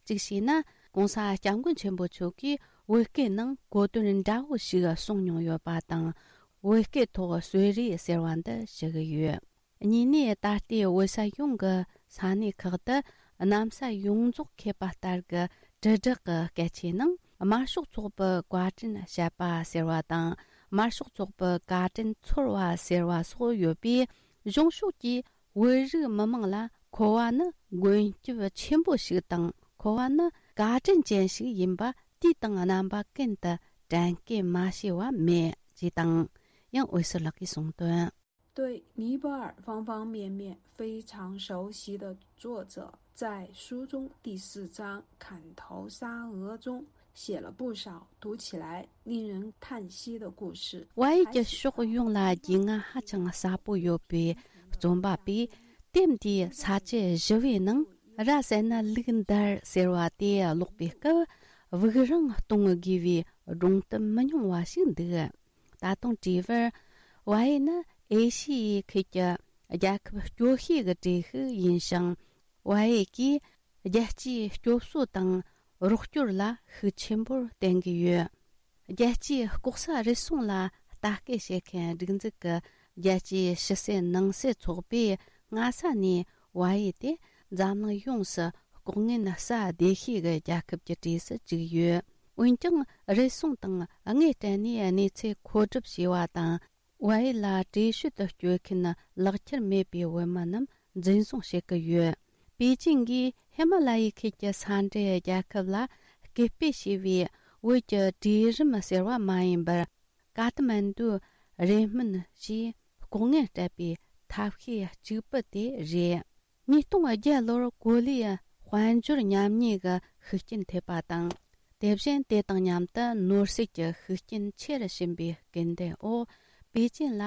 གཅིག་བྱས་ན་༸གོང་ས་༸སྐྱབས་མགོན་ཆེན་པོ་མཆོག་གིས་བོད་སྐད་ནང་གོ་དོན་འདྲ་བོ་ཞིག་གསུངས་མྱོང་ཡོད་པ་དང་། བོད་སྐད་ཐོག་གསོལ་རས་ཟེར་བ་འདི་ཞུ་གི་ཡོད། གཉིས་ནས་ད་ལྟའི་བོད་ས་ཡོངས་ཀྱི་ས་གནས་ཁག་ཏུ་གནམ་ས་ཡོངས་རྫོགས་ཁེབས་པ་ལྟར་གྱི་དྲིལ་བསྒྲགས་ཀྱི་སྐད་ཆའི་ནང་དམར་ཤོག་ཚོགས་པའི་བཀའ་དྲིན་བཤད་པ་ཟེར་བ་དང་། དམར་ཤོག་ཚོགས་པའི་བཀའ་དྲིན་ཚོར་བ་ཟེར་བ་སོགས་ཡོད་པས། གཞུང་ཕྱོགས་ཀྱིས་བོད་རིགས་མི་མང་ལ་མཁོ་བ་ནི་མགོན་སྐྱབས་ཆེན་པོ་ཞིག་དང་། མཁོ་བ་ནི་བཀའ་དྲིན་ཅན་ཞིག་ཡིན་པ་དུས་དང་རྣམ་པ་ཀུན་ཏུ་དྲན་སྐུལ་མ་བྱས་པ་མེད་ཅེས་དང་། ཡང་འོད་ཟེར་ལགས་ཀྱིས་གསུངས་དོན། 对尼泊尔方方面面非常熟悉的作者，在书中第四章《砍头杀额》中写了不少读起来令人叹息的故事。 བལ་ཡུལ་གྱི་ཕྱོགས་ཡོངས་ལ་རྒྱུས་མངའ་ཧ་ཅང་ཟབ་པོ་ཡོད་པའི་རྩོམ་པ་པས་དེབ་འདིའི་ས་བཅད་བཞི་པའི་ནང་ར་བསད་ན་ལུག་འདར་ཟེར་བ་དེ་ཀློག་པའི་སྐབས་དབུགས་རིང་གཏོང་དགོས་པའི་སྒྲུང་གཏམ་མི་ཉུང་བ་ཞིག་འདུག་ད་དུང་བྲིས་པར། བལ་ཡུལ་ནི་ཨེ་ཤི་ཡའི་ཁུལ་གྱི་རྒྱལ་ཁབ་སྐྱོ་ཤོས་ཀྱི་གྲས་ཤིག་ཡིན་ཞིང་། བལ་ཡུལ་གྱིས་རྒྱལ་སྤྱིའི་སྐྱོབ་གསོ་དང་རོགས་སྐྱོར་ལ་ཤུགས་ཆེན་པོར་བརྟེན་གྱི་ཡོད། རྒྱལ་སྤྱིའི་ལྐོག་ཟ་རུལ་སུངས་ལ་ལྟ་སྐུལ་བྱེད་མཁན་སྒྲིག་འཛུགས་ཀྱི་རྒྱལ་སྤྱིའི་ཕྱི་སེལ་ནང་སེལ་ཚོགས་པས་སྔ་ས་ནས་བལ་ཡུལ་དེ་འཛམ་གླིང་ཡོངས་སུ་ལྐོག་རྔན་ཟ་བདེ་ཤོས་ཀྱི་རྒྱལ་ཁབ་ཀྱི་གྲས་སུ་བཅུག་ཡོད། འོན་ཀྱང་རུལ་སུངས་དང་དངུལ་སྤྲད་ནས་གནས་ཚུལ་མཁོ་སྒྲུབ་བྱས་པ་དང་། བལ་ཡུལ་ལ་བྲོས་བྱོལ་དུ་བསྐྱོད་མཁན་ལག་ཁྱེར་མེད་པའི་བོད་མི་རྣམས་འཛིན་བཟུང་བྱེད་ཀྱི་ཡོད། པེ་ཅིང་གིས་ཧི་མ་ལ་ཡའི་ཁུལ་གྱི་ས་འབྲེལ་རྒྱལ་ཁབ་ལ་སྐུལ་སྤེལ་བྱས་པའི་བོད་ཀྱི་གྲོས་རིམ་ཟེར་བ་མ་ཡིན་པར། ཀ་ཐ་མན་ཌུ་རེ་སྨོན་ཞེས་ལྐོག་རྔན་སྤྲད་པའི་ཐབས་ཤེས་གཅིག་པུ་དེ་རེད། ཉིས་སྟོང་བརྒྱད་ལོར་གོ་ལའི་དཔལ་འབྱོར་ཉམས་ཉེས་ཀྱི་ཤུགས་རྐྱེན་ཐེབས་པ་དང་། དེ་བཞིན་དེ་དང་མཉམ་དུ་ནོར་སྲིད་ཀྱི་ཤུགས་རྐྱེན་ཆེ་རུ་ཕྱིན་པའི་སྐུལ་འདེད་འོག་པེ་ཅིན་ལ་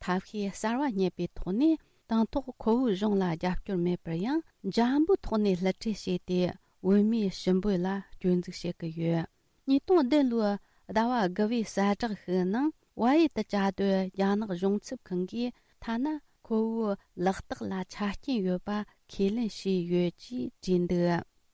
ཐབས་ཤེས་གསར་བ་རྙེད་པའི་ཐོག་ནས། དང་ཐོག་ཁོ་བོའི་གཞུང་ལ་རྒྱབ་སྐྱོར་མེད་པར་ཡང་འཇམ་པོའི་ཐོག་ནས་བསླུ་བྲིད་བྱས་ཏེ། བོད་མིའི་ཞི་འབོད་ལ་སྐྱོན་འཛུགས་བྱེད་ཀྱི་ཡོད། ཉིས་སྟོང་བདུན་ལོའི་ཟླ་བ་དགུ་བའི་གསལ་བསྒྲགས་ཤིག་ནང་། བལ་ཡུལ་དུ་བཅའ་སྡོད་རྒྱ་ནག་གཞུང་ཚབ་ཁང་གིས་ཐ་ན་ཁོ་བོའི་ལག་རྟགས་ལ་ཆ་རྐྱེན་ཡོད་པ་ཁས་ལེན་བྱས་ཡོད་ཅེས་བྲིས་འདུག།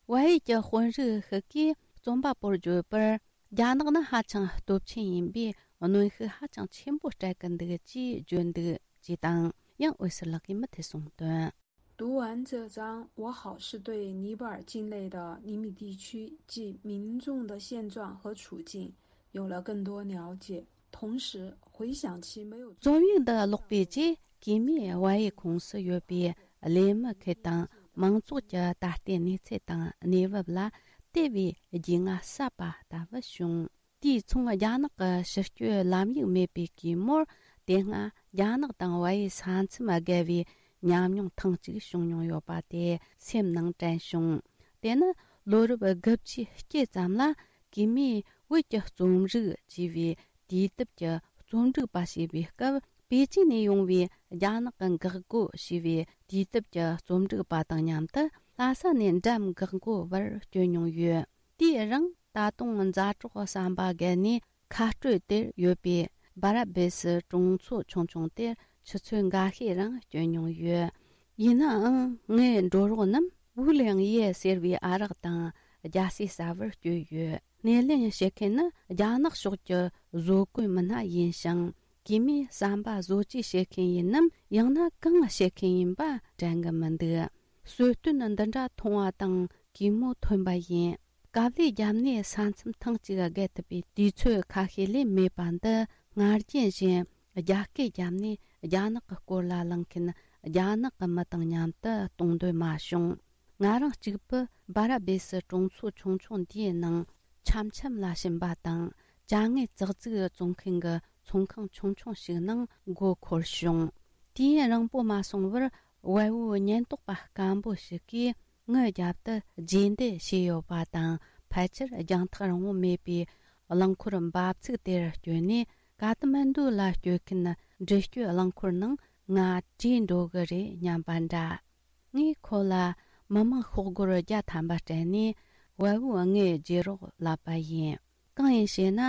བལ་ཡུལ་གྱི་དཔོན་རིགས་ཤིག་གིས་རྩོམ་པ་པོར་བརྗོད་པར། རྒྱ་ནག་ནི་ཧ་ཅང་སྟོབས་ཆེན་ཡིན་པས། གནོན་ཤུགས་ཧ་ཅང་ཆེན་པོ་སྤྲད་ཀྱི་འདུག་ཅེས་བརྗོད་འདུག་ཅེས་དང་། ཡང་འོད་ཟེར་ལགས་ཀྱིས་མུ་མཐུད་གསུངས་དོན། 读完这章，我好似对尼泊尔境内的尼米地区及民众的现状和处境有了更多了解，同时回想起没有 རྩོམ་ཡིག་འདི་ཀློག་པའི་རྗེས། གུས་མོས་བལ་ཡུལ་ཁོངས་སུ་ཡོད་པའི་ལས་མི་ཁུལ་དང་། མང་ཚོགས་ཀྱི་ད་ལྟའི་གནས་ཚུལ་དང་གནས་བབ་ལ་དེ་བས་རྒྱུས་མངའ་ཟབ་པ་ལྟ་བུ་བྱུང་། དུས་མཚུངས། རྒྱ་ནག་གི་ཕྱི་སྐྱོད་ལམ་ཡིག་མེད་པའི་གུས་མོར། དེ་སྔ་རྒྱ་ནག་དང་བལ་ཡུལ་ས་མཚམས་བརྒལ་བའི་ཉམས་མྱོང་ཐེངས་གཅིག་བྱུང་མྱོང་ཡོད་པ་དེ་སེམས་ནང་དྲན་བྱུང་། དེ་ནི་ལོ་རབས་དགུ་བཅུའི་དཀྱིལ་ཙམ་ལ། གུས་མོས་བོད་ཀྱི་རྩོམ་རིག་ཅེས་པའི་དུས་དེབ་ཀྱི་རྩོམ་སྒྲིག་པ་བྱས་པའི་སྐབས། པེ་ཅིན་ནས་ཡོང་བའི་རྒྱ་ནག་གི་འགག་སྒོ་ཞེས་པའི་དུས་དེབ་ཀྱི་རྩོམ་སྒྲིག་པ་དང་མཉམ་དུ། ལྷ་ས་ནས་འགྲམ་འགག་སྒོ་བར་བསྐྱོད་མྱོང་ཡོད། དེའི་རིང་། ད་དུང་མཛའ་གྲོགས་བསམ་པ་བརྒལ་ནས་ཁ་སྤྲོད་དེར་ཡོད་པའི་སྦ་ར་བེ་སི་གྲོང་ཚོ་ཆུང་ཆུང་དེར་ཆུ་ཚོད་འགའ་ཤས་རིང་བསྐྱོད་མྱོང་ཡོད། ཡིན་ནའང་། ངའི་འགྲོ་རོགས་རྣམས་ཝུ་ལེང་ཡེ་ཟེར་བའི་ཨ་རག་དང་རྒྱ་སེ་ཟ་བར་བསྐྱོད་ཡོད། སྣེ་ལེན་བྱེད་མཁན་ནི་རྒྱ་ནག་ཕྱོགས་ཀྱི་བཟོ་བཀོད་མི་སྣ་ཡིན་ཞིང་། གུས་མོས་བསམ་པ་བཟོ་བཅོས་བྱེད་མཁན་ཡིན་ནམ། ཡང་ན་གང་བྱེད་མཁན་ཡིན་པ་དྲན་གི་མི་འདུག། གསོལ་སྟོན་འདི་འདྲ་མཐོང་བ་དང་། གུས་མོ་ཐོན་པ་ཡིན། དཀའ་ལས་བརྒྱབ་ནས་ས་མཚམས་ཐེངས་གཅིག་བརྒལ་ཐུབ་པའི་དུས་ཚོད་ཁ་ཤས་ལས་མེད་པ་འདི། སྔར་རྒྱུན་བཞིན་རྒྱ་སྐད་བརྒྱབ་ནས་རྒྱ་ནག་གི་སྐོར་ལ་གླེང་མཁན་རྒྱ་ནག་གི་མི་དང་མཉམ་དུ་གཏོང་འདོད་མ་བྱུང་། ང་རང་གཅིག་པུ་སྦ་ར་བེ་སི་གྲོང་ཚོ་ཆུང་ཆུང་འདིའི་ནང་འཆམ་འཆམ་ལ་ཕྱིན་པ་དང་། ཅ་དངོས་ཙག་ཙིག་བཙོང་མཁན་གྱི་ཚོང་ཁང་ཆུང་ཆུང་ཞིག་ནང་མགོ་འཁོར་བྱུང་། དུས་ཡུན་རིང་པོ་མ་སོང་བར། བལ་བོའི་ཉེན་རྟོག་པ་སྐམ་པོ་ཞིག་གིས་ངའི་རྒྱབ་ཏུ་རྗེས་འདེད་བྱས་ཡོད་པ་དང་། ཕལ་ཆེར་རྒྱང་ཐག་རིང་བོ་མེད་པའི་རླངས་འཁོར་འབབ་ཚུགས་དེར་བསྐྱོད་ནས། ཀ་ཐ་མན་ཌུ་ལ་སྐྱོད་མཁན་འགྲུལ་སྐྱོད་རླངས་འཁོར་ནང་ང་བྲོས་འགྲོ་གི་རེད་སྙམ་པ་འདྲ། ངས་ཁོ་ལ་མི་མང་ཤོག་སྒོར་བརྒྱ་ཐམ་པ་སྤྲད་ནས། བལ་བོའི་ངའི་རྗེས་རོགས་ལབ་པ་ཡིན། གང་ཡིན་ཞེ་ན།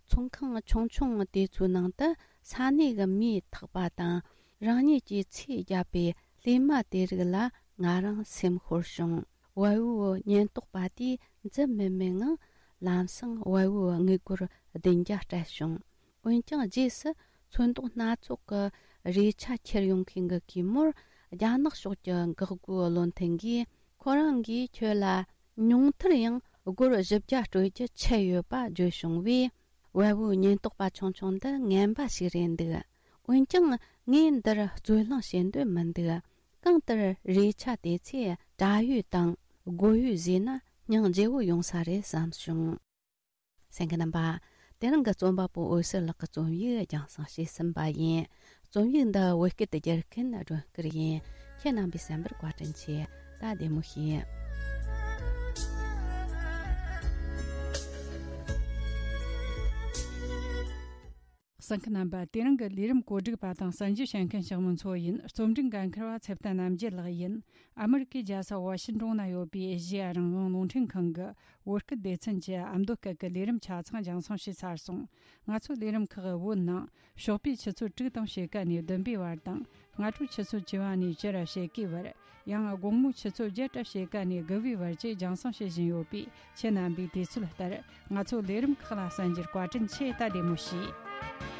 ཚོང་ཁང་ཆུང་ཆུང་དེ་ཚོའི་ནང་དུ་ས་གནས་ཀྱི་མིས་འཐག་པ་དང་། རང་ཉིད་ཀྱིས་ཚོས་བརྒྱབ་པའི་ལྷས་མ་དེ་རིགས་ལ་ང་རང་སེམས་ཤོར་བྱུང་། བལ་བོའི་ཉེན་རྟོག་པ་དེས་འཛུལ་མི་མེད་ངང་། ལམ་སང་བལ་བོའི་དངུལ་སྒོར་བདུན་བརྒྱ་སྤྲད་བྱུང་། འོན་ཀྱང་། རྗེས་སུ་ཚོན་མདོག་སྣ་ཚོགས་ཀྱི་རས་ཆ་ཁྱེར་ཡོང་མཁན་གྱི་གུས་མོར། རྒྱ་ནག་ཕྱོགས་ཀྱི་འགག་སྒོའི་བློ་མཐུན་གྱིས། ཁོ་རང་གིས་ཁྱོད་ལ་ཉུང་མཐར་ཡང་སྒོར་བཞི་བརྒྱ་སྤྲོད་རྒྱུ་ཆད་ཡོད་པ་བརྗོད་བྱུང་བས། བལ་བོའི་ཉེན་རྟོག་པ་ཆུང་ཆུང་འདི་ངན་པ་ཞིག་རེད་འདུག། འོན་ཀྱང་། ངས་འདིར་རྩོད་གླེང་བྱེད་འདོད་མི་འདུག། གང་ལྟར། རས་ཆ་དེ་ཚོས་དྲ་ཡོད་དང་སྒོར་ཡོད་བཟོས་ན། སྙིང་རྗེ་བོ་ཡོང་ས་རེད་བསམ་བྱུང་། གསན་མཁན་རྣམ་པ། དེ་རིང་གི་རྩོམ་པ་པོ་འོད་ཟེར་ལགས་ཀྱི་རྩོམ་ཡིག་རྒྱང་སྲིང་བྱས་ཟིན་པ་ཡིན། རྩོམ་ཡིག་འདི་བོད་སྐད་དུ་བསྒྱུར་མཁན་སྒྲོན་སྐུར་ཡིན། ཁྱེད་རྣམ་པས་གསན་པར་བཀའ་དྲིན་ཆེ། ད་བདེ་མོ་བྱོས། གསན་མཁན་རྣམ་པ། དེ་རིང་གི་ལས་རིམ་གོ་སྒྲིག་པ་དང་གསན་རྒྱུ་བྱེད་མཁན་ཞིག་མི་ཚོ་ཡིན། རྩོམ་སྒྲིག་འགན་འཁུར་བ་ཚེ་བརྟན་རྣམ་རྒྱལ་ལགས་ཡིན། ཨ་མི་རི་ཀའི་རྒྱལ་ས་ཝ་ཤིན་ཏོན་ན་ཡོད་པའི་ཨེ་ཤེ་ཡ་རང་དབང་རླུང་འཕྲིན་ཁང་གི་བོད་སྐད་སྡེ་ཚན་གྱི་ཨ་མདོ་སྐད་ཀྱི་ལས་རིམ་ཆ་ཚང་རྒྱང་སྲིང་བྱས་ཚར་སོང་། ང་ཚོའི་ལས་རིམ་ཁག་བོད་ནང་ཞོགས་པའི་ཆུ་ཚོད་དྲུག་དང་ཕྱེད་ཀ་ནས་བདུན་པའི་བར་དང་། སྔ་དྲོའི་ཆུ་ཚོད་བཅུ་པ་ནས་བཅུ་ར་ཕྱེད་ཀའི་བར། ཡང་དགོང་མོའི་ཆུ་ཚོད་བརྒྱད་ར་ཕྱེད་ཀ་ནས་དགུ་པའི་བར་བཅས་རྒྱང་སྲིང་བྱེད་བཞིན་ཡོད་པས། ཁྱེད་རྣམ་པས་དུས་ཚོད་ལྟར་ང་ཚོའི་ལས་རིམ་ཁག་ལ་གསན་རྒྱུར་བཀའ་དྲིན་ཆེ། ད་བདེ་མོ་བྱོས།